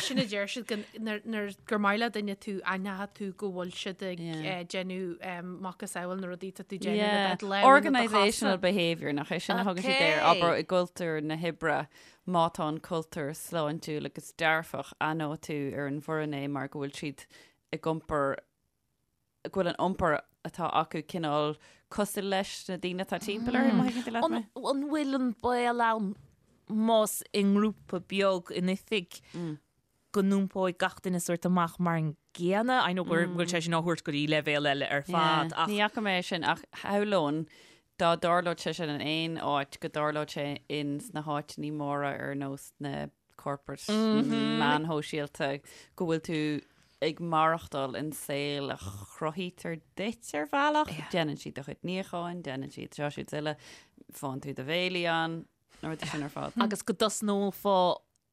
Sin a deir siad go- nuair- nuair gur maith le duine tú aithneoidh tú go bhfuil siad ag Yeah. eh, déanamh em, macasamhail na rudaí tá tú déanamh Yeah. le do lámha nó do Organisational chosa. behaviour nach é sin a thugann siad air Okay. abair i gcultúr na hoibre má tá an cultúr sláintiúil agus dearfach aithneoidh tú ar an bhfoireann é mar go bhfuil siad ag iompar go bhfuil an iompar atá acu cineál cosúil leis na daoine atá timpeall orthu, má thuigeann tú leat An, mé. an bhfuil an baol ann más i ngrúpa beag in oifig go n-iompóidh gach duine sort amach mar an gcéanna? I know go bhfuil sé sin á thabhairt go dtí leibhéal eile ar fad Yeah. ach Ní fhaca mé é sin ach shamhlóinn dá dtarlódh sé sin in aon áit go dtarlódh sé in sna háiteanna móra ar nós na corporate meáin shóisialta go bhfuil tú ag maireachtáil in saol a chruthaítear duit ar bhealach. Déanann siad do chuid níocháin, déanann siad seo siúd is uile, faigheann tú do bhéilí ann, na rudaí sin ar fad. agus go dtosnófá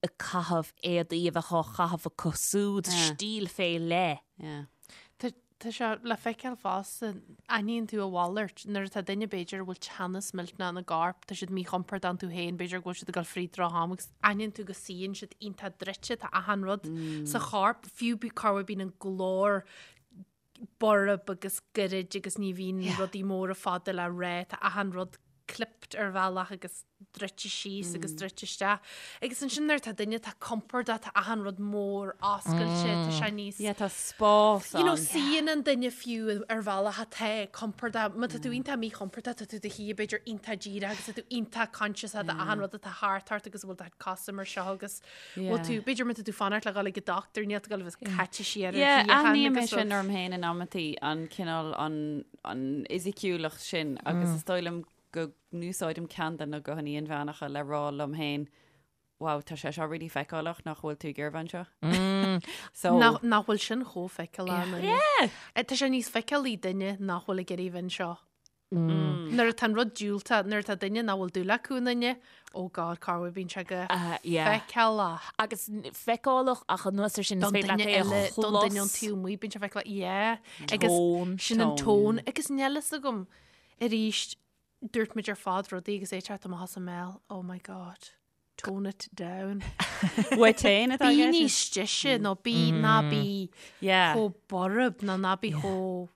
ag caitheamh éadaí a bheadh á chaitheamh acu siúd, Yeah. stíl fé leith. Yeah. Tá tá sé le feiceáil fosta, aithníonn tú a mhalairt nuair atá duine b'fhéidir a bhfuil teannas millteanach ina gcorp, tá siad míchompordach iontu féin, b'fhéidir go bhfuil siad ag dul fríd droch-am agus aithníonn tú go suíonn siad iontach druidte, tá achan rud sa chorp, fiú bí corruair bíonn an glór. borb agus goirid agus ní bhíonn rudaí móra fada le rá, tá achan rud clipped ar bhealach agus druidte síos agus druidte isteach. Agus ansin nuair atá duine atá compordach, tá achan rud mór oscailte, tá sé níos. Yeah, tá spás You know, suíonn an duine fiú ar bhealach atá compordach. Má tá tú iontach míchompordach, tá tú i do shuí b'fhéidir iontach díreach agus tá tú iontach conscious de achan rud atá thart ort agus bhfuil do cosa mar seo agus Bhfuil tú, b'fhéidir má tá tú fanacht le dhul ag an dochtúir, níl tú ag dul a bheith caite siar ar Yeah, shuíochán aithním é agus sin orm féin in amantaí, an cineál, an, an fhisiciúlacht sin agus is dóigh liom go n-úsáidim ceann de na guthanna inmheánacha le rá liom féin, wow, tá sé seo really feiceálach nach bhfuil tú ag iarraidh bheith anseo. So, Nach, nach bhfuil sin chomh feiceálach. Yeah. Tá sé níos feiceálaí duine nach bhfuil ag iarraidh bheith anseo. Nuair atá an rud diúltach, nuair atá duine nach bhfuil dúil acu i nduine, oh God, cá bhfuil bíonn sé go feiceálach. Agus feiceálach ach anuas ar sin is Don féidir leat duine é a eile, don duine ón chlos. taobh amuigh, bíonn sé feiceálach, yeah. Agus Tone. sin an Tone, tone. Agus níl fhios agam, arís, dúirt muid ar fad rudaí agus é ag teacht amach as an mbéal, oh my God. Tone it down. Uait féin atá Bí i gceist? níos deise nó bí ná bí Yeah. chomh borb nó ná bí chomh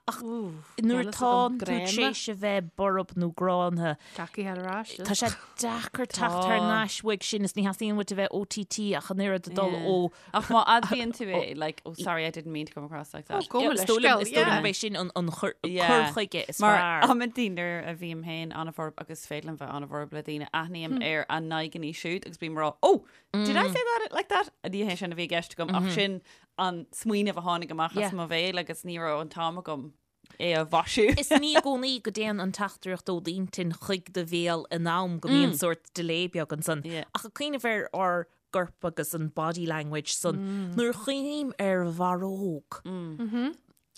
Ach nuair atá tú tar éis a bheith borb nó gránna, Deacair ar ais. tá sé deacair teacht thar n-ais uaidh sin is ní theastaíonn uait a bheith OTT ach an oiread ag dul ó Ach má admhaíonn tú é, like, oh sorry, I didn't mean to come across like that. Oh, go Is dóigh liom leithscéal, is dóigh liom yeah. gurb é sin an an cur Yeah. cur chuige is Mar fearr. amantaí nuair a bhím féin an-bhorb agus is féidir liom bheith an-bhorb le daoine, aithním ar a n-aghaidheanna siúd agus bím ag rá, oh, did I say that like that? Ní hé sin a bhí i gceist agam ach sin an smaoineamh a tháinig amach as Yeah. mo bhéal agus ní raibh an t-am agam é a mhaisiú. Is ní i gcónaí go dtéann an teachtaireacht ó d'intinn chuig do bhéal in am go mbíonn sórt delay beag ansan. Yeah. Ach ag cuimhneamh ar ár gcorp agus an body language san, nuair a chuimhním ar bharróg,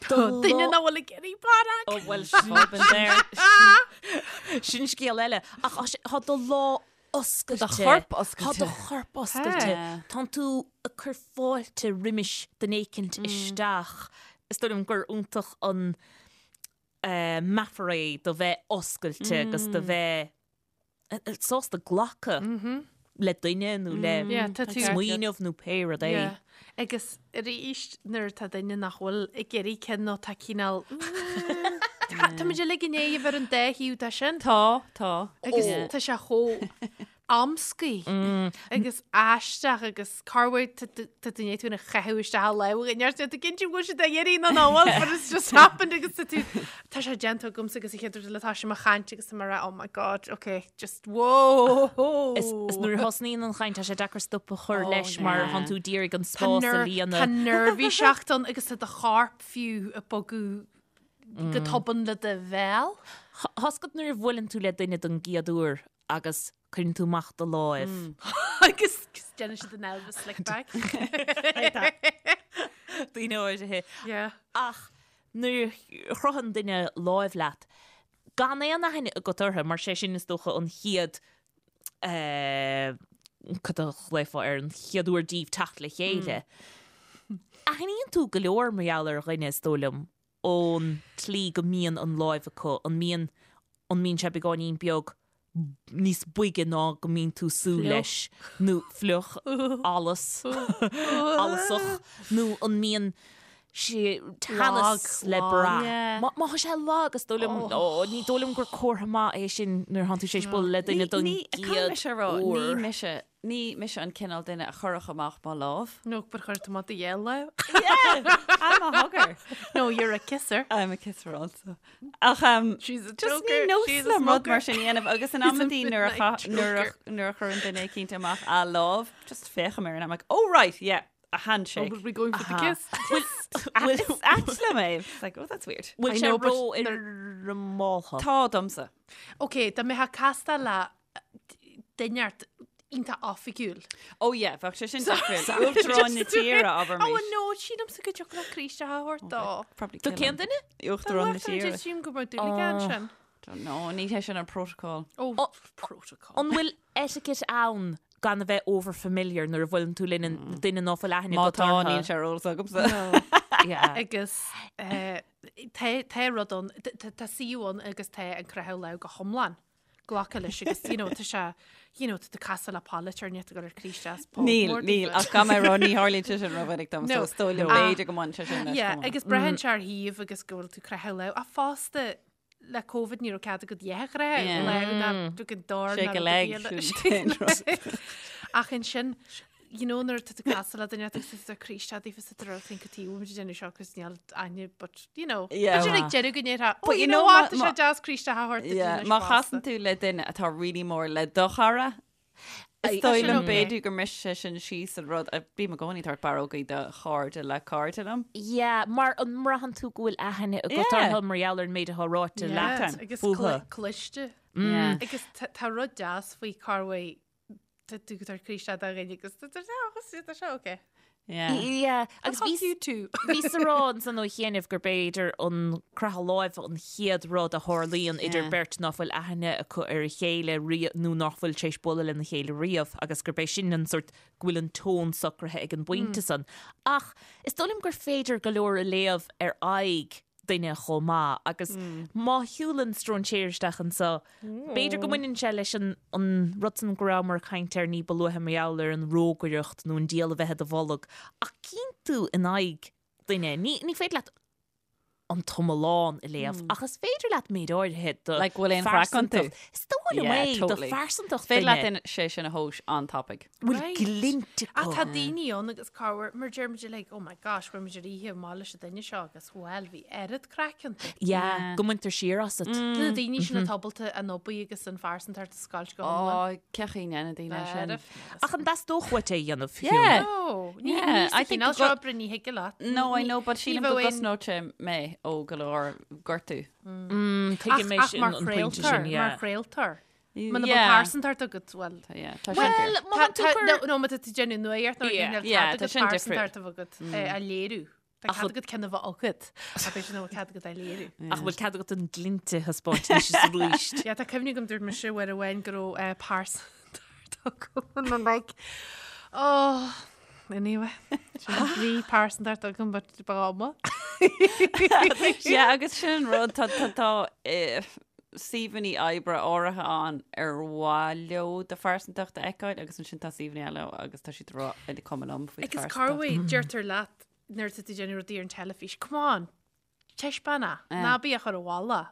Duine nach bhfuil ag iarraidh barróg. Ó bhuel Sin there. sin scéal eile. Ach tá sé- tá do lámh oscailte. Tá do chorp oscailte. Tá do chorp oscailte. Tánn tú ag cur fáilte roimis duine éicint isteach. Is dóigh liom gur iontach an meafar é do bheith oscailte agus do bheith sásta glacadh le duine nó le smaoineamh nó pé rud é. Agus arís nuair atá duine nach bhfuil ag iarraidh ceann nó tá cineál Tá muid uilig i ndiaidh a bheith ar an dá thaobh de sin. Tá, tá. Agus tá sé chomh amscaí agus aisteach agus corruair tá duine tú ina chaitheamh isteach a lámh in ar tú cinnte go bhfuil siad ag iarraidh nó nach bhfuil but it's just happened agus tá tú tá sé déanta agamsa agus an chéad rud eile tá sé mo chaint agus tá mé ag rá oh my god okay just whoa Is is nuair a thosnaíonn an chaint tá sé deacair stop a chur Oh, leis mar yeah. thánn tú d'iarraidh an Tá spás a ner- tá líonadh. neirbhíseacht ann agus tá do chorp fiú ag bogadh go tobann le do bhéal. Tá's agat nuair a bhuaileann tú le duine don gcéad uair agus cuireann tú amach do láimh. Agus déanann siad an Elvis slick back. Daoine áirithe. Yeah. Ach nuair a chroitheann duine láimh leat, gan aon aithne agat orthu, mar sé sin is dócha an chéad, cad a ghlaofá air, an chéad uair díbh teacht le chéile. Aithníonn tú go leor mar gheall ar dhuine, is dóigh liom, ón tslí go mbíonn an láimh acu, an mbíonn, an mbíonn sé beagáinín beag níos boige ná go mbíonn tú súil leis, nó fliuch, allas, allasach, nó an mbíonn sé teannas le brath. Má má tá sé lag, is dóigh liom, ó, ní dóigh liom gur comhartha maith é sin nuair atánn tú tar éis bualadh le duine don Caithfidh gcéad mise a rá, ní uair. mise Ní mise an cineál duine a chuirfeadh amach mo lámh. No, but chuir tú amach do dhélámh. Yeah, I'm a hugger. No, you're a kisser. I'm a kisser also. Ach um, She's a just joker. ní nós She's a liom rud smoker. mar sin a dhéanamh agus in She's a amantaí nuair a midnight cha- nuair a- joker. nuair a chuireann duine éicint amach a lámh, just féachaim air and I'm like, oh right, yeah, a Oh, handshake. but we're going for the kiss. Well, is ait liom é. It's like, oh, that's weird. Bhfuil I sé know, but ró-fhoirmeálta? Tá domsa. Ok, dá mbeifeá ag castáil le duine ort iontach oifigiúil. Oh yeah, bheadh sé sin difriúil. Uachtarán na tíre, abair Oh mis. no, sílimse go dtiocfadh le Críost a thabhairt dó. Probably Do kill cén him. duine? Uachtarán na tíre. Sílim go mbeadh dúil aige ansin. Don't know, ní hé sin an protocol. Oh, Oh, protocol. An bhfuil etiquette ann gan a bheith over familiar nuair a bhuaileann tú le duine ná fuil aithne Má agat tá orthu? níl sé ar eolas agamsa. Yeah. Agus eh, tá tá rud ann, tá suíomh ann agus tá an croitheadh lámh go hiomlán. glacadh leis agus you know tá sé you know tá tú ag casadh le polaiteoir níl tú ag dul ar croí isteach as pub Níl, mór níl, daofa. ach gan mé rá ní tharlaíonn sé sin rómhinic dom, so No. is dóigh liom Ah. b'fhéidir go mbaineann sé sin leis Yeah, chomh maith. agus braitheann sé ar shuíomh agus go bhfuil tú ag croitheadh lámh. Ach fosta le Covid ní raibh cead agat a dhath a chroitheadh Yeah. lámh ná tú go dtor Shake ná a leg, rud ar bith sin an eile. Ach ansin you know nuair atá tú ag casadh le duine agus tá tú ag croí isteach daofa sa dtreo think tí bhfuil muid ag déanamh seo agus níl aithne but you know Yeah. b'fhéidir ag deireadh go ndéarfá oh But you you know know what má- tá sé má- deas croí isteach a thabhairt duit Yeah, anois Má fosta. chasann tú le duine atá really mór le do chara, is dóigh sin liom okay. b'fhéidir go mbrisfidh sé sin síos an rud a bím i gcónaí ag tabhairt barrógaí do chairde le cairde liom. Yeah, mar an mbraitheann tú go bhfuil aithne agat Yeah. orthu mar gheall ar an méid atá ráite Yeah, leat agus fúthu. cl- cliste Yeah. agus tá tá rud deas faoi cá bhfuil Tá tú ag tabhairt croí isteach do dhuine agus tá tá sé okay. Yeah. Yeah, agus Fuck bhí you too. Bhíos ag rá ansan ó chianaibh gur b'fhéidir an croitheadh láimhe an chéad rud a tharlaíonn idir Yeah. beirt ná fuil aithne acu ar a chéile riamh nó nach bhfuil tar éis bualadh lena chéile riamh agus gurb é sin an sórt go bhfuil an tón socraithe ag an bpointe san. Ach is dóigh liom gur féidir go leor a léamh ar aghaidh duine chomh maith agus má shiúlann stróinséir isteach anseo, b'fhéidir go mbaineann sé leis an an rud san go rabhamar ag caint air ní ba luaithe mar gheall ar an rógaireacht nó an diabhal a bheith i do bholg ach cíonn tú in aghaidh duine, ní ní féidir leat an t-iomlán a léamh ach is féidir leat méid áirithe de Like, bhfuil aon chraic iontu? phearsantacht. Is dóigh liom Yeah, é, de totally. phearsantacht Féidir leat duine. in- sé sin a thomhas an-tapaidh. Bhfuil Right. glint Ach acu. tá daoine ann agus corruair mar deir muid like, oh my gosh, bhfuair muid ar oíche amach leis an duine seo agus bhuel bhí oiread craic iontu. Yeah, go mbaintear siar asat. Na daoine sin atá ábalta an obair agus an phearsantacht a scoilt go hiomlán. Ó, cén chaoi a ndéanann daoine sin. Ach an dteastódh uait é a dhéanamh, fiú? Yeah. No, ní Yeah, ní I think cineál go- seo oibre ní thig leat. No, I know, but ní sílim go bheadh aon- gcosnódh sé mé ó go leor gortú. Tuigim é Ach sin mar an pointe sin, chraoltóir, mar yeah. chraoltóir. Muna bhfuil Yeah. pearsantacht agat, well, Tá, yeah, tá sin Well, fíor. má tá tú Tá- cur- no, no, má tá tú ag déanamh nuacht nó Yeah. níl Yeah, cead tá agat sin pearsantacht a bheith agat é a léiriú. Tá cead agat ceann a bheith agat, ach b'fhéidir nach bhfuil cead agat é a léiriú. Ach bhfuil cead agat an glint a thaispeáint anois is arís. Yeah, tá cuimhne agam dúirt mise uair amháin go raibh eh, pearsantacht agam and I'm like, oh, anyway, sin bhí pearsantacht agam but ba ama. Yeah, agus sin an rud, tá, tá, tá, eh, suíomhanna oibre áirithe ann ar mhaith leo do phearsantacht a fheiceáil agus ansin tá suíomhanna eile agus tá siad ag rá is cuma liom faoi Agus phearsantacht. corruair deirtear leat nuair atá tú ag déanamh rudaí ar an teilifís, come on, taispeáin é, ná bí á chur i bhfolach.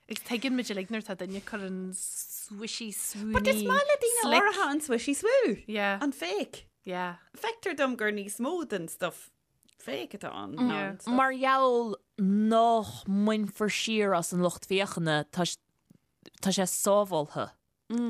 Agus tuigeann muid uilig nuair atá duine ag cur an swishy swoony But is maith le daoine slick. áirithe an swishy swoo. Yeah. An fake. Yeah. Feictear dom gur níos mó den stuff fake atá ann ná Yeah. an stuff. Mar gheall nach mbainfear siar as an lucht féachana, tá tá sé sábháilte.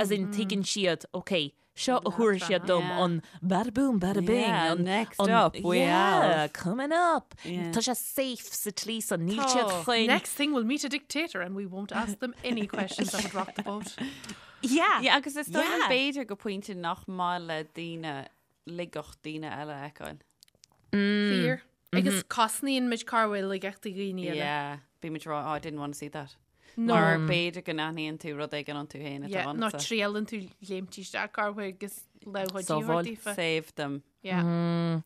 As in tuigeann siad, ok, seo a thabharfaidh siad dom Yeah. an bada boom, bada bing. Yeah, an, next an, up we yeah, have. coming up. Yeah. Tá sé safe sa tslí san, níl Tá. siad chun. Next thing we'll meet a dictator and we won't ask them any questions that would rock the boat. Yeah. Yeah, agus is dóigh liom Yeah. b'fhéidir go pointe nach maith le daoine laigeacht daoine eile a fheiceáil. Fíor. Agus cosnaíonn muid corruair laigeachtaí dhaoine eile. Yeah, bímid ag rá, oh, I didn't want to see that. No. Mar b'fhéidir go n-aithníonn tú rud éigin iontu féin atá Yeah, nó ionatsa. triaileann tú léimt isteach corruair agus lámh Sábháil. daofa. Save them. Yeah.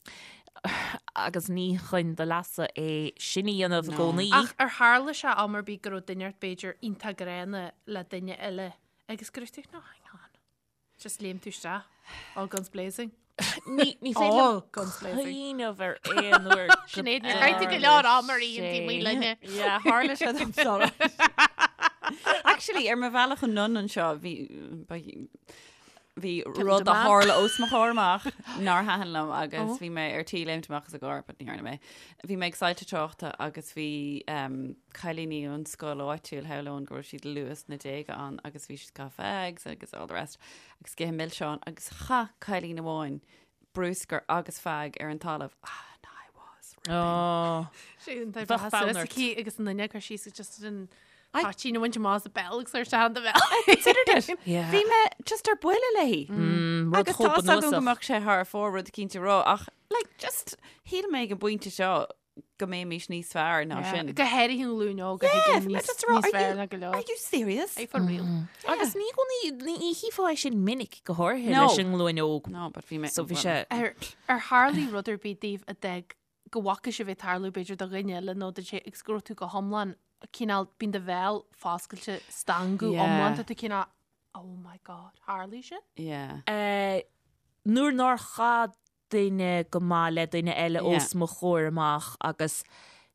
Agus ní chun do leasa é sin a dhéanamh i gcónaí. Ach ar tharla sé am ar bith go raibh duine ort b'fhéidir iontach gránna le duine eile agus go raibh tú, no, hang on. Just léim tú isteach. All guns blazing. Ní ní féidir All liom guns blazing. cuimhneamh ar aon uair go Sinéad, níor chaith tú go leor am ar aon taobh amuigh linne. Yeah, tharla sé dom sorry. Actually, ar mo bhealach anonn anseo bhí ba- bhí rud a man. tharla os mo chomhair amach nár thaitin liom agus bhí mé ar tí léimt amach as an gcarr, but ní dhearna mé. Bhí mé ag soilse tráchta agus bhí um, cailíní ón scoil áitiúil shamhlóinn go raibh siad luath sna déaga ann agus bhí siad ag caitheamh fags agus all the rest agus ag ithe milseáin agus chaith cailín amháin bruscar agus fag ar an talamh. Ah, and I was ripping. Oh. Sé an Bheadh bheadh fonn suas ort. aici agus an duine cur síos just an toitín a bhaint amach as a béal agus ar sean do bhéal. Considered it. Yeah. Bhí mé just ar buile léi. Rud Agus chomh tá agam go bunúsach. mbeadh sé thar fóir rud eicínt a rá ach like just shíl mé ag an bpointe seo go mbeimis níos fearr ná sin. Go háirithe an ghlúin óg a Yeah, thuigeann bhí mé níos just a rá, níos are fearr you- ná go leor. Are you serious? Are you for real? Agus ní gcónaí ní chífeá é sin minic go háirithe No. leis an nglúin óg. No, but bhí mé So bhí sé Ar ar tharlaigh rud ar bith daoibh a d'fhág go bhfaca sibh é ag tarlú b'fhéidir do dhuine eile nó do sé agus go raibh tú go hiomlán cineál bíonn do bhéal foscailte stangadh Yeah. iomlán tá tú cineál Oh my God, tharlaigh sin? Yeah. Eh, nuair nár chaith duine go maith le duine eile os mo chomhair amach agus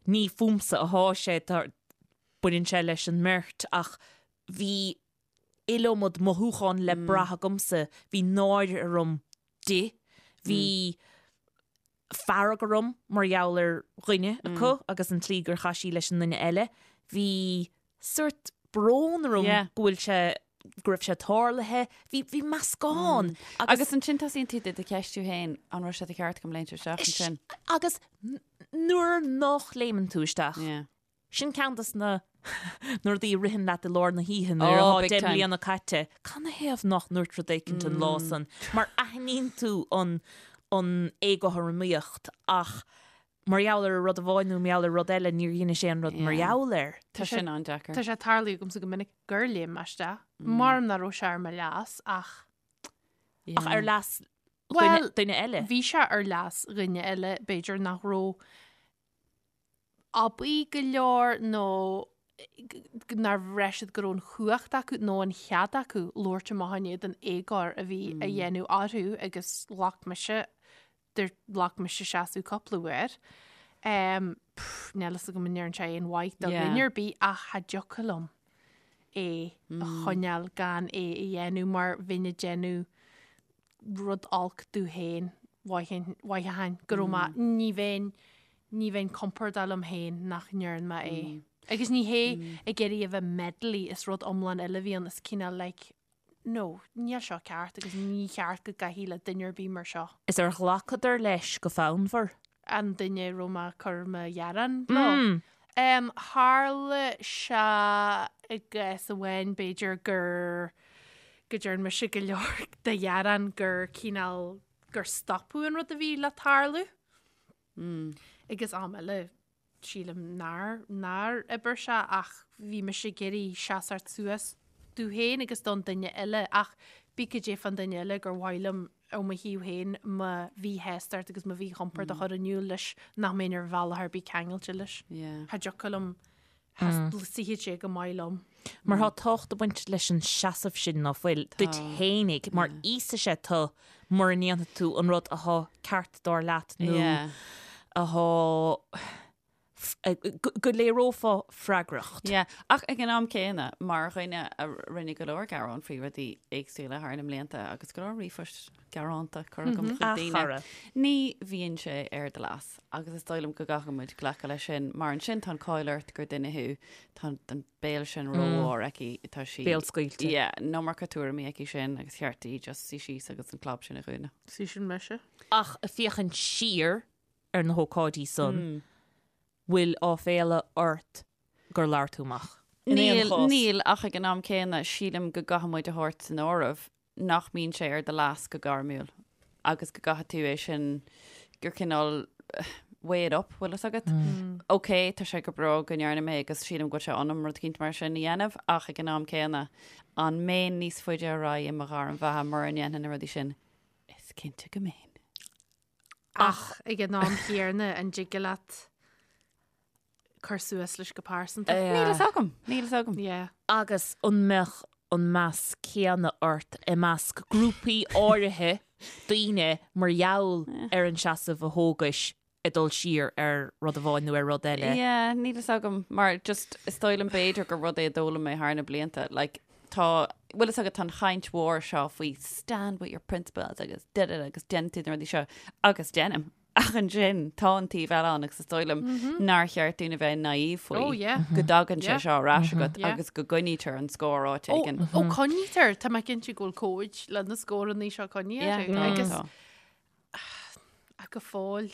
ní fúmsa athá sé, tá, baineann sé leis an mbeirt ach bhí iliomad mothúchán le brath agamsa, bhí náire orm di, bhí fearg orm mar gheall ar dhuine acu agus an tslí gur chaith sí leis an nduine eile, bhí sórt brón orm go bhfuil sé, go raibh sé tarlaithe, bhí, bhí meascán agus. Agus ansin tosaíonn tú do do cheistiú féin, an raibh sé de cheart agam léimt isteach ansin? Agus nuair nach léimeann tú isteach, sin ceann de na na rudaí a ritheann leat i lár na hoíche nuair atá 10 mbliana caite, canathaobh nach ndúirt rud éicint an lá san? Mar aithníonn tú an an éagothromaíocht ach mar gheall ar rud amháin nó mar gheall ar rud eile níor dheinis aon rud mar gheall air. Tá sin an-deacair. Tá sé tarlaithe agamsa go minic gur léim mé isteach. Maram nach raibh sé ar mo leas ach. Ach ar leas duine eile? Bhí sé ar leas dhuine eile, b'fhéidir nach raibh aibí go leor nó nár bhraith siad go raibh an chumhacht acu nó an chead acu labhairt amach in éadan éagóir a bhí á dhéanamh orthu agus ghlac mise ghlac mise seasamh cúpla uair. Níl fhios agam an ndearna sé aon mhaith do dhuine ar bith ach cha dtiocfadh liom é a choinneáil gan é a dhéanamh mar bheinn ag déanamh rud olc domh féin mhothaíonn go raibh mé ní bheinn ní bheinn compordach liom féin nach ndearna mé é. Agus ní hé ag iarraidh a bheith meddly is rud iomlán eile a bhí ann is cineál like No, níl seo ceart agus ní cheart go gcaithfí le duine ar bith mar seo. Is ar ghlacadar leis go fonnmhar? An duine a raibh mé ag cur mo ghearán leo. Tharla sé i gcás amháin b'fhéidir gur, go dtearn mise go leor de ghearán gur cineál, gur stopadh an rud a bhí le tarlú. Agus am eile sílim nár, nár oibir sé ach bhí mise ag iarraidh seasamh suas domh féin agus don duine eile ach bíodh cad é fán duine eile gur mhaith liom ó mo thaobh féin mo mhíshástacht agus mo mhíchompord a chur in iúl leis nach mbeinn ar bhealach ar bith ceangailte leis. Cha dtiocfadh liom, cha suífeadh sé go maith liom. Mar tá tábhacht ag baint leis an seasamh sin ná fuil, duit fhéinig, mar íosfaidh sé tu mura ndéanfaidh tú an rud athá ceart dar leat nó athá go léireofá freagracht. Yeah, ach ag an am céanna, mar dhuine a rinne go leor gearán faoi rudaí éagsúla thar na mblianta agus go leor ríomhphoist gearánta curtha agam chuig daoine, ní bhíonn sé ar do leas agus is dóigh liom go gcaithfidh muid glacadh leis sin mar ansin tá an cáil ort gur duine thú, tá an béal sin rómhór aici, tá sí... Béal scaoilte. Yeah, an iomarca tuairimí aici sin agus cheart di just suí síos agus an clab sin a dhúnadh. Sí sin mise. Ach ag féachaint siar ar na hócáidí san, bhfuil áiféala ort gur labhair tú amach? In aon Níl, chás. níl, ach ag an am céanna, sílim go gcaithfidh muid a thabhairt san áireamh nach mbíonn sé ar do leas go gairmiúil agus go gcaithfidh tú é sin, gur cineál weigh it up, bhfuil fhios agat? Ok, tá sé go breá go ndearna mé agus sílim go bhfuil sé ionam rud eicínt mar sin a dhéanamh ach ag an am céanna, an mbeinn níos faide ar aghaidh i mo ghairm bheatha mura ndéanfainn na rudaí sin? Is cinnte go mbeinn. Ach ag an am chéanna, an dtig leat cur suas leis go pearsanta? Níl fhios agam, níl fhios agam. Yeah. Agus an mbeadh an meas céanna ort i measc grúpaí áirithe daoine mar gheall ar an seasamh a thógais ag dul siar ar rud amháin nó ar rud eile? Yeah, níl fhios agam, mar just is dóigh liom b'fhéidir gur rud é a d'fhoghlaim mé thar na blianta, like tá, bhfuil fhios agat tá an chaint mhór seo faoi stand with your principles agus da da da agus déanann tú na rudaí seo agus déanaim. Ach ansin tá an taobh eile ann agus is dóigh liom nár cheart dúinn a bheith naive faoi Oh, yeah. go dtagann sé Yeah. seo ar ais agat Yeah. agus go gcoinnítear an scór áit Ó, éigin. ó coinnítear, tá mé cinnte go bhfuil comhaid le na scóranna seo coinnithe Yeah, orthu. tá, Agus tá. Ach go fóill,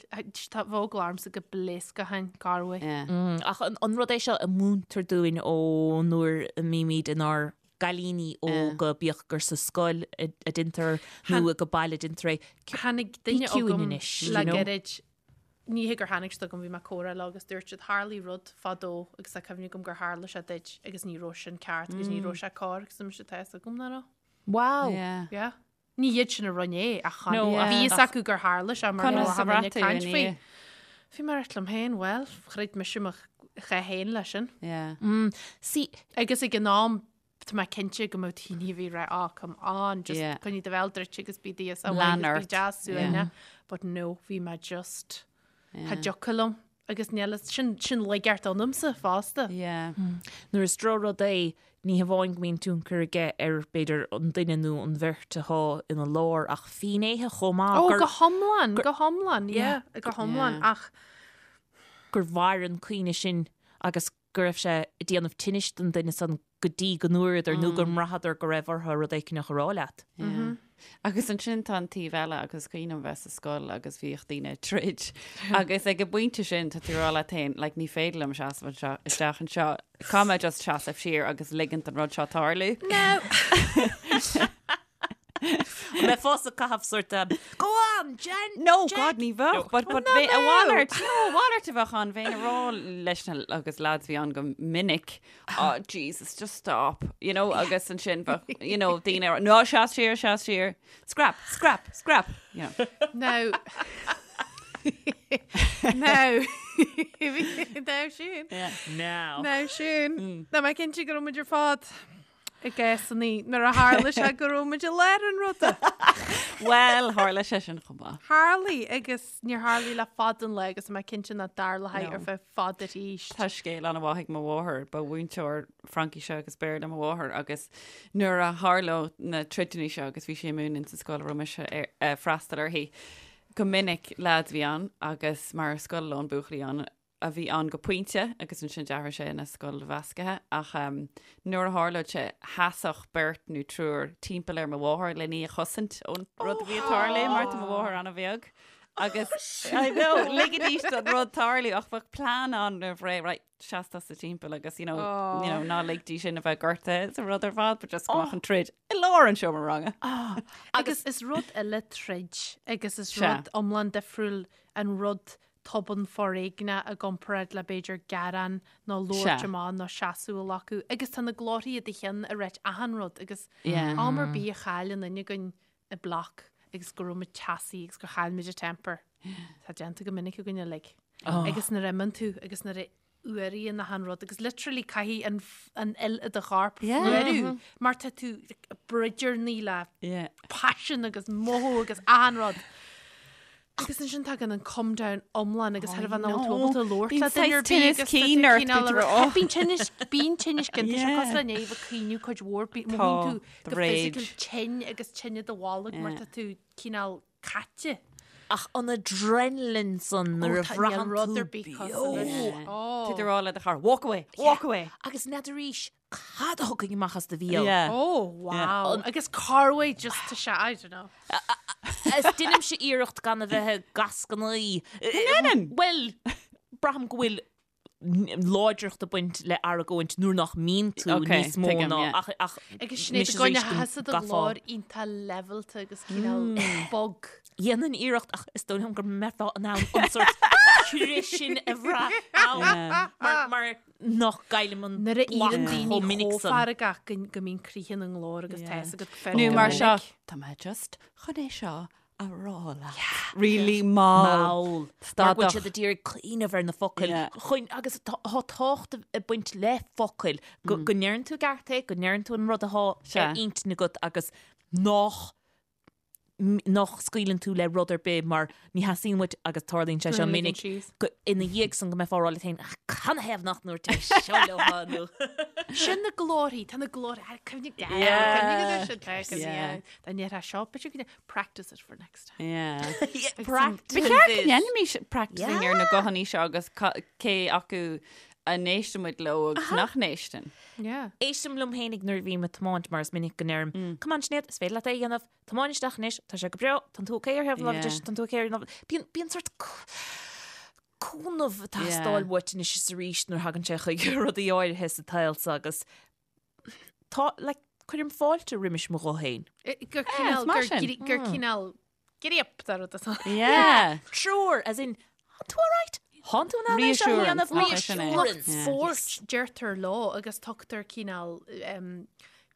tá bheadh eagla ormsa go bpléascfainn corruair. Yeah. Ach an rud é seo a múintear dúinn ó nuair a mbímid inár gcailíní óga, bíodh gur sa scoil a deintear nó ag baile a deintear é. Tháinig duine Bí ciúin agam anois, le you know? gairid, ní hé gur tháinig siad agam, bhí mé ag comhrá leo agus dúirt siad tharlaigh rud fadó agus tá cuimhne agam gur tharla sé duit agus ní raibh sin ceart agus ní raibh sé cóir agus mise tá fhios agam nach raibh. Wow! Yeah. Yeah. Ní hiad sin a rinne é ach No, bhí fhios acu gur tharla sé mar Conas a bhí bhraith tú caint ina faoi. dhiaidh? Bhí mé ag rá liom féin, bhuel, chreid mise mo chath féin leis sin. Yeah. See, Agus ag an am, Tá mé cinnte go mbeadh daoine a bhí ag rá, oh, come on, just Yeah. coinnigh do bhéal druidte agus bí deas Lean agus bí ort. deas suaimhneach. But no, bhí mé just, cha dtiocfadh liom. Agus níl, sin, sin laigeacht ionamsa fosta. Yeah. Nuair is drochrud é, ní hamháin go mbíonn tionchar aige ar, b'fhéidir, an duine nó an bheirt atá ina lár, ach finnéithe chomh maith Ó, gur, go hiomlán, go hiomlán, yeah, go hiomlán, Yeah. ach gur mhair an cuimhne sin agus go raibh sé ag déanamh tinnis don duine san go dtí go ndúradar nó go mbraitheadar go raibh orthu rud éicneach a rá leat. Yeah. Agus ansin tá an taobh eile agus cuimhin liom bheith sa scoil agus bhíodh daoine ag troid agus ag an bpointe sin tá tú ag rá leat féin like ní féidir liom seasamh anseo isteach anseo caithfidh mé just seasamh siar agus ligint don rud seo tarlú. No! An mbeifeása ag caitheamh sort of Go on, Jen! No, Jack! God, ní bheadh, but, but bhí a mhalairt, no, a mhalairt a bheadh ann, bheinn ag rá leis na, agus lads bhí ann go minic, oh, Jesus, just stop, you know, agus ansin bheadh, you know, daoine ag rá, no, seas siar, seas siar, scrap, scrap, scrap, you know. Now, now, now sin, Yeah. Now. now sin, Tá mé cinnte go raibh muid ar fad i gcásanna nuair a tharla sé go raibh muid i lár an ruda. Well, tharla sé sin chomh maith. Tharlaigh agus níor tharlaigh le fada an lá agus tá mé cinnte nach dtarlóidh No. ar feadh fada arís. Tá scéal an-mhaith ag mo mháthair, ba mhúinteoir Fraincise agus Béarla mo mháthair agus nuair a tharlódh na troideanna seo agus bhí sí ag múineadh sa scoil a raibh mise ag freastal uirthi, go minic leaids a bhí ann agus mar scoil lán buachaillí ann, a bhí ann go pointe agus ansin d'athraigh sé ina scoil mheascaithe ach nuair a tharlódh sé sheasfadh beirt nó triúr timpeall ar mo mháthair len í a chosaint ón rud a bhí ag tarlú mar tá mo mháthair an-bheag agus I know ligidís don rud tarlú ach bheadh plean ann roimh ré right seas tusa timpeall agus you know, you know ná lig di sin a bheith gortaithe sa rud ar fad but just go mbeadh an troid i lár an seomra ranga. Agus is rud eile troid agus is Sea. rud iomlán difriúil an rud tobann foréigneach i gcomparáid le b'fhéidir gearán nó labhairt amach nó seasamh a ghlacadh agus tá na glórthaí i do cheann ag ráit achan rud agus am ar bith a chailleann duine againn a block agus go raibh muid teasaí agus gur chaill muid an temper. Tá déanta go minic againn uilig. Agus nuair a imíonn tú agus nuair a fhuaraíonn achan rud agus literally caithfidh an an fhuil i do chorp fuarú mar tá tú broidearnaí le paisean agus mothú agus achan rud. Agus ansin tagann an come down iomlán agus thar a bheith ná tú ábalta labhairt le duine ar bith agus tá tú cineál a rá- Bíonn tinneas bíonn tinneas ginte sé cosúil le néamh ag caoineadh cuid mhór mothaíonn tú go physical tinn agus tinn i do bholg mar tá tú cineál caite. Ach an adrenaline san nuair a bhraitheann rud tú ar bith cosúil leis. beo. Ó. Tá tú ag rá le do chara, walk away, walk away. Agus n'fheadar arís cad a thiocfaidh amach as do bhéal. Yeah. Oh, wow. Agus corruair just tá sé, I don't know. Is deinimse iarracht gan a bheith ag gascanaí. ndeineann? Bhuel, braithim go bhfuil láidreacht ag baint le argóint nuair nach mbíonn tú Ok, níos mó tuigim, ná yeah. ach ach Agus Sinéad anois i gcoinne is arís go sheasamh do gcaithfeá. ghlór iontach levelta agus cineál bog. Dhéanfainn iarracht ach is dóigh liom go mbeifeá in ann an sórt crith sin a bhrath ann mar mar nach gcaillim an Nuair a block éiríonn daoine chomh minic chomh san. feargach go go mbíonn crith ina nglór agus tá fhios agat go Nó go mar seo, minic. tá mé just chun é seo a rá leat. Really mall. Mall. Mar go bhfuil Stadach. siad ag iarraidh cuimhneamh ar na focail. Yeah. Chun, agus tá tá tábhacht ag baint le focail. Go, go ndeireann tú i gceart é, go ndeireann tú an rud atá Sea. ar intinn agat agus nach m- nach scaoileann tú le rud ar bith mar ní theastaíonn uait agus tarlaíonn sé seo Go minic ligeann síos. go ina dhiaidh san go mbeifeá ag rá leat féin "Ach, canathaobh nach ndúirt mé seo leo nó Sin na glórthaí, tá na glórthaí, cuimhnigh Yeah. cuimhnigh ar sin, tá, Yeah. yeah. Dá ndéarfá seo, but you can practice it for next time. Yeah. Practice Ba cheart go ndéanfaimis practicing ar na guthanna seo agus cé acu a n-éisteann muid leo agus nach n-éisteann. Yeah. Éistim liom féinig nuair a bhím ag tiomáint mar is minic go ndeirim, Come on Sinéad, is féidir leat é a dhéanamh, tiomáin isteach anois, tá sé go breá, tánn tú okay ar thaobh na láimhe deise, tánn tú okay ar an láimhe. Bíonn, bíonn sort cúnamh ag teastáil uait anois is arís nuair a thagann sé chuig rudaí áirithe sa tsaol seo agus Tá, like, cuirim fáilte roimis mo ghuth féin. Gur cineál, is maith gur sin. gri- gur cineál gríop dá rud atá. Yeah. Treoir, as in, Tá tú alright? Tánn tú in ann é seo a Reassurance, dhéanamh? nach é sin é? Reassurance. Yeah. Spóirt, deirtear leo agus tugtar cineál, em,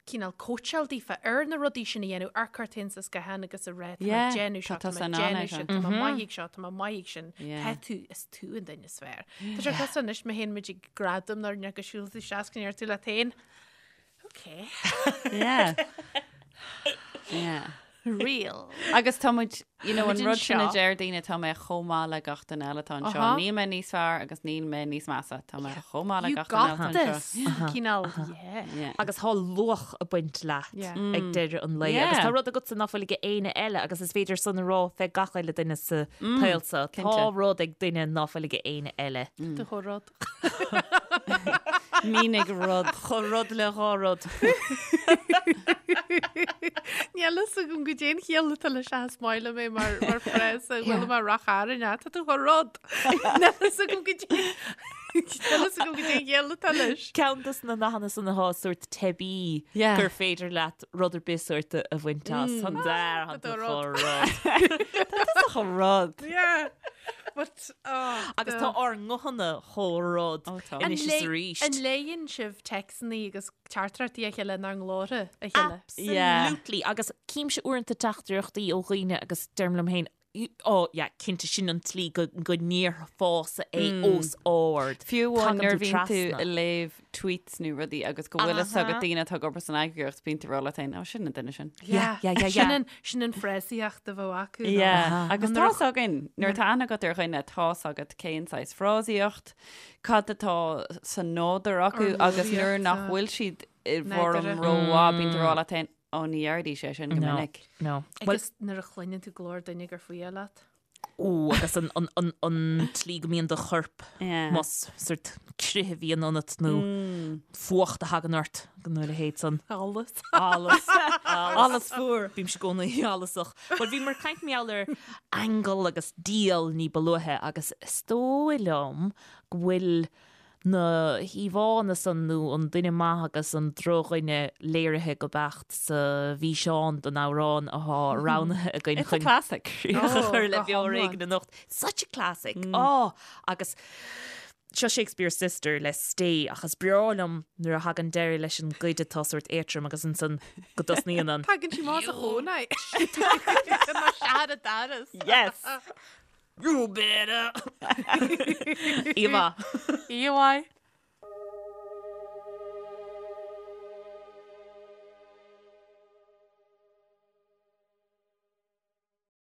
cineál cóitseáil daofa ar na rudaí sin a dhéanamh, ar cur tú féin sa scáthán agus a rá, tá mé Yeah, ag déanamh tá seo, tá tusa mé in ag ann é déanamh seo. sin, tá mé maith ag seo, tá mé maith ag sin. Yeah. Tá tú, is tú an duine is fearr. Tá sé cosúil anois má théann muid ag gradam nuair nach go siúl tú isteach go ndeir tú leat féin. Okay. Yeah. Yeah. Real. Agus tá muid, you know, an Muid rud sin a anseo. deir daoine tá mé chomh maith le gach duine eile atá anseo. Aha. Níl mé níos fearr agus níl mé níos measa. Tá mé chomh maith le You gach duine got eile atá anseo. this. Cineál, yeah. Yeah. Agus tá luach ag baint leat Yeah. ag deireadh an lae. Yeah. Agus tá rud agatsa ná fuil ag éinne eile agus is féidir san a rá fé gach uile duine sa tsaol seo. Tá cinnte. rud ag duine ná fuil ag éinne eile. Do chomh rud. Mínigh rud. Chomh rud le dhá rud. Níl fhios agam goidé an chiall atá leis ach is maith liom é mar mar frása bhfuil mar rach aran tá tú chomh rud. Níl fhios agam goidé Níl fhios agam goidé an chiall atá leis. Ceann dos na nathanna san atá sórt teibí Yeah. gur féidir leat rud ar bith sórt a bhaint as. An dar Tá an tú rud. chomh rud. Tá chomh rud. Yeah. But, oh, Agus tá ár nguthanna chomh rud Ó, tá. anois is arís. An léann sibh téacsanna agus teachtaireachtaí a chéile inár nglórtha a chéile? Absolutely. Agus címse uaireanta teachtaireachtaí ó dhaoine agus deirim liom féin, ó, yeah, cinnte sin an tslí go go ndéarfása é os ard. Fiú amháin Tagann nuair tú bhíonn tú trasna. ag léamh tweets nó rudaí agus go bhfuil fhios agat daoine atá ag obair san eagraíocht bíonn tú ag rá leat féin, ó sin an duine sin. Yeah, yeah, yeah, yeah. Sin an, sin an frásaíocht a bheadh acu. nó- Yeah. Agus Nuair a tá's againn, nuair atá aithne agat ar dhuine, tá's agat cén saghas frásaíocht, cad atá sa nádúr acu agus nuair nach bhfuil siad i bhfoirm Nádúrtha. rómhaith bíonn tú ag rá leat féin, Ó, ní dhéarfaidís é sin go No, minic. no. Well, Agus nuair a chluineann tú glór duine gur fuath leat. ó, agus an, an, an, an tslí go mbíonn do chorp Yeah. más sort crith a bhíonn ionat nó fuacht a thagann ort nó a leithéid san. Allas. Allas. Allas fuar. Bímse i gcónaí allasach. Well, bhíomar ag caint mar gheall ar aingeal agus diabhal ní ba luaithe agus is dóigh liom go bhfuil na híomhánna san nó an duine maith agus an drochdhuine léirithe go beacht sa bhfíseán don amhrán atá roghnaithe againn It's a chun classic. críoch a chur le go Beo Ar hiomlán. Éigean anocht. Such a classic. Á, agus seo Shakespeare's Sister le Stay ach is breá liom nuair a thagann deireadh leis an gcuid atá sórt éadrom agus ansan go dtosnaíonn an Tagann sí más a chónaí. Mar seara daras. Yes! You better! Íomhá. Íomhá.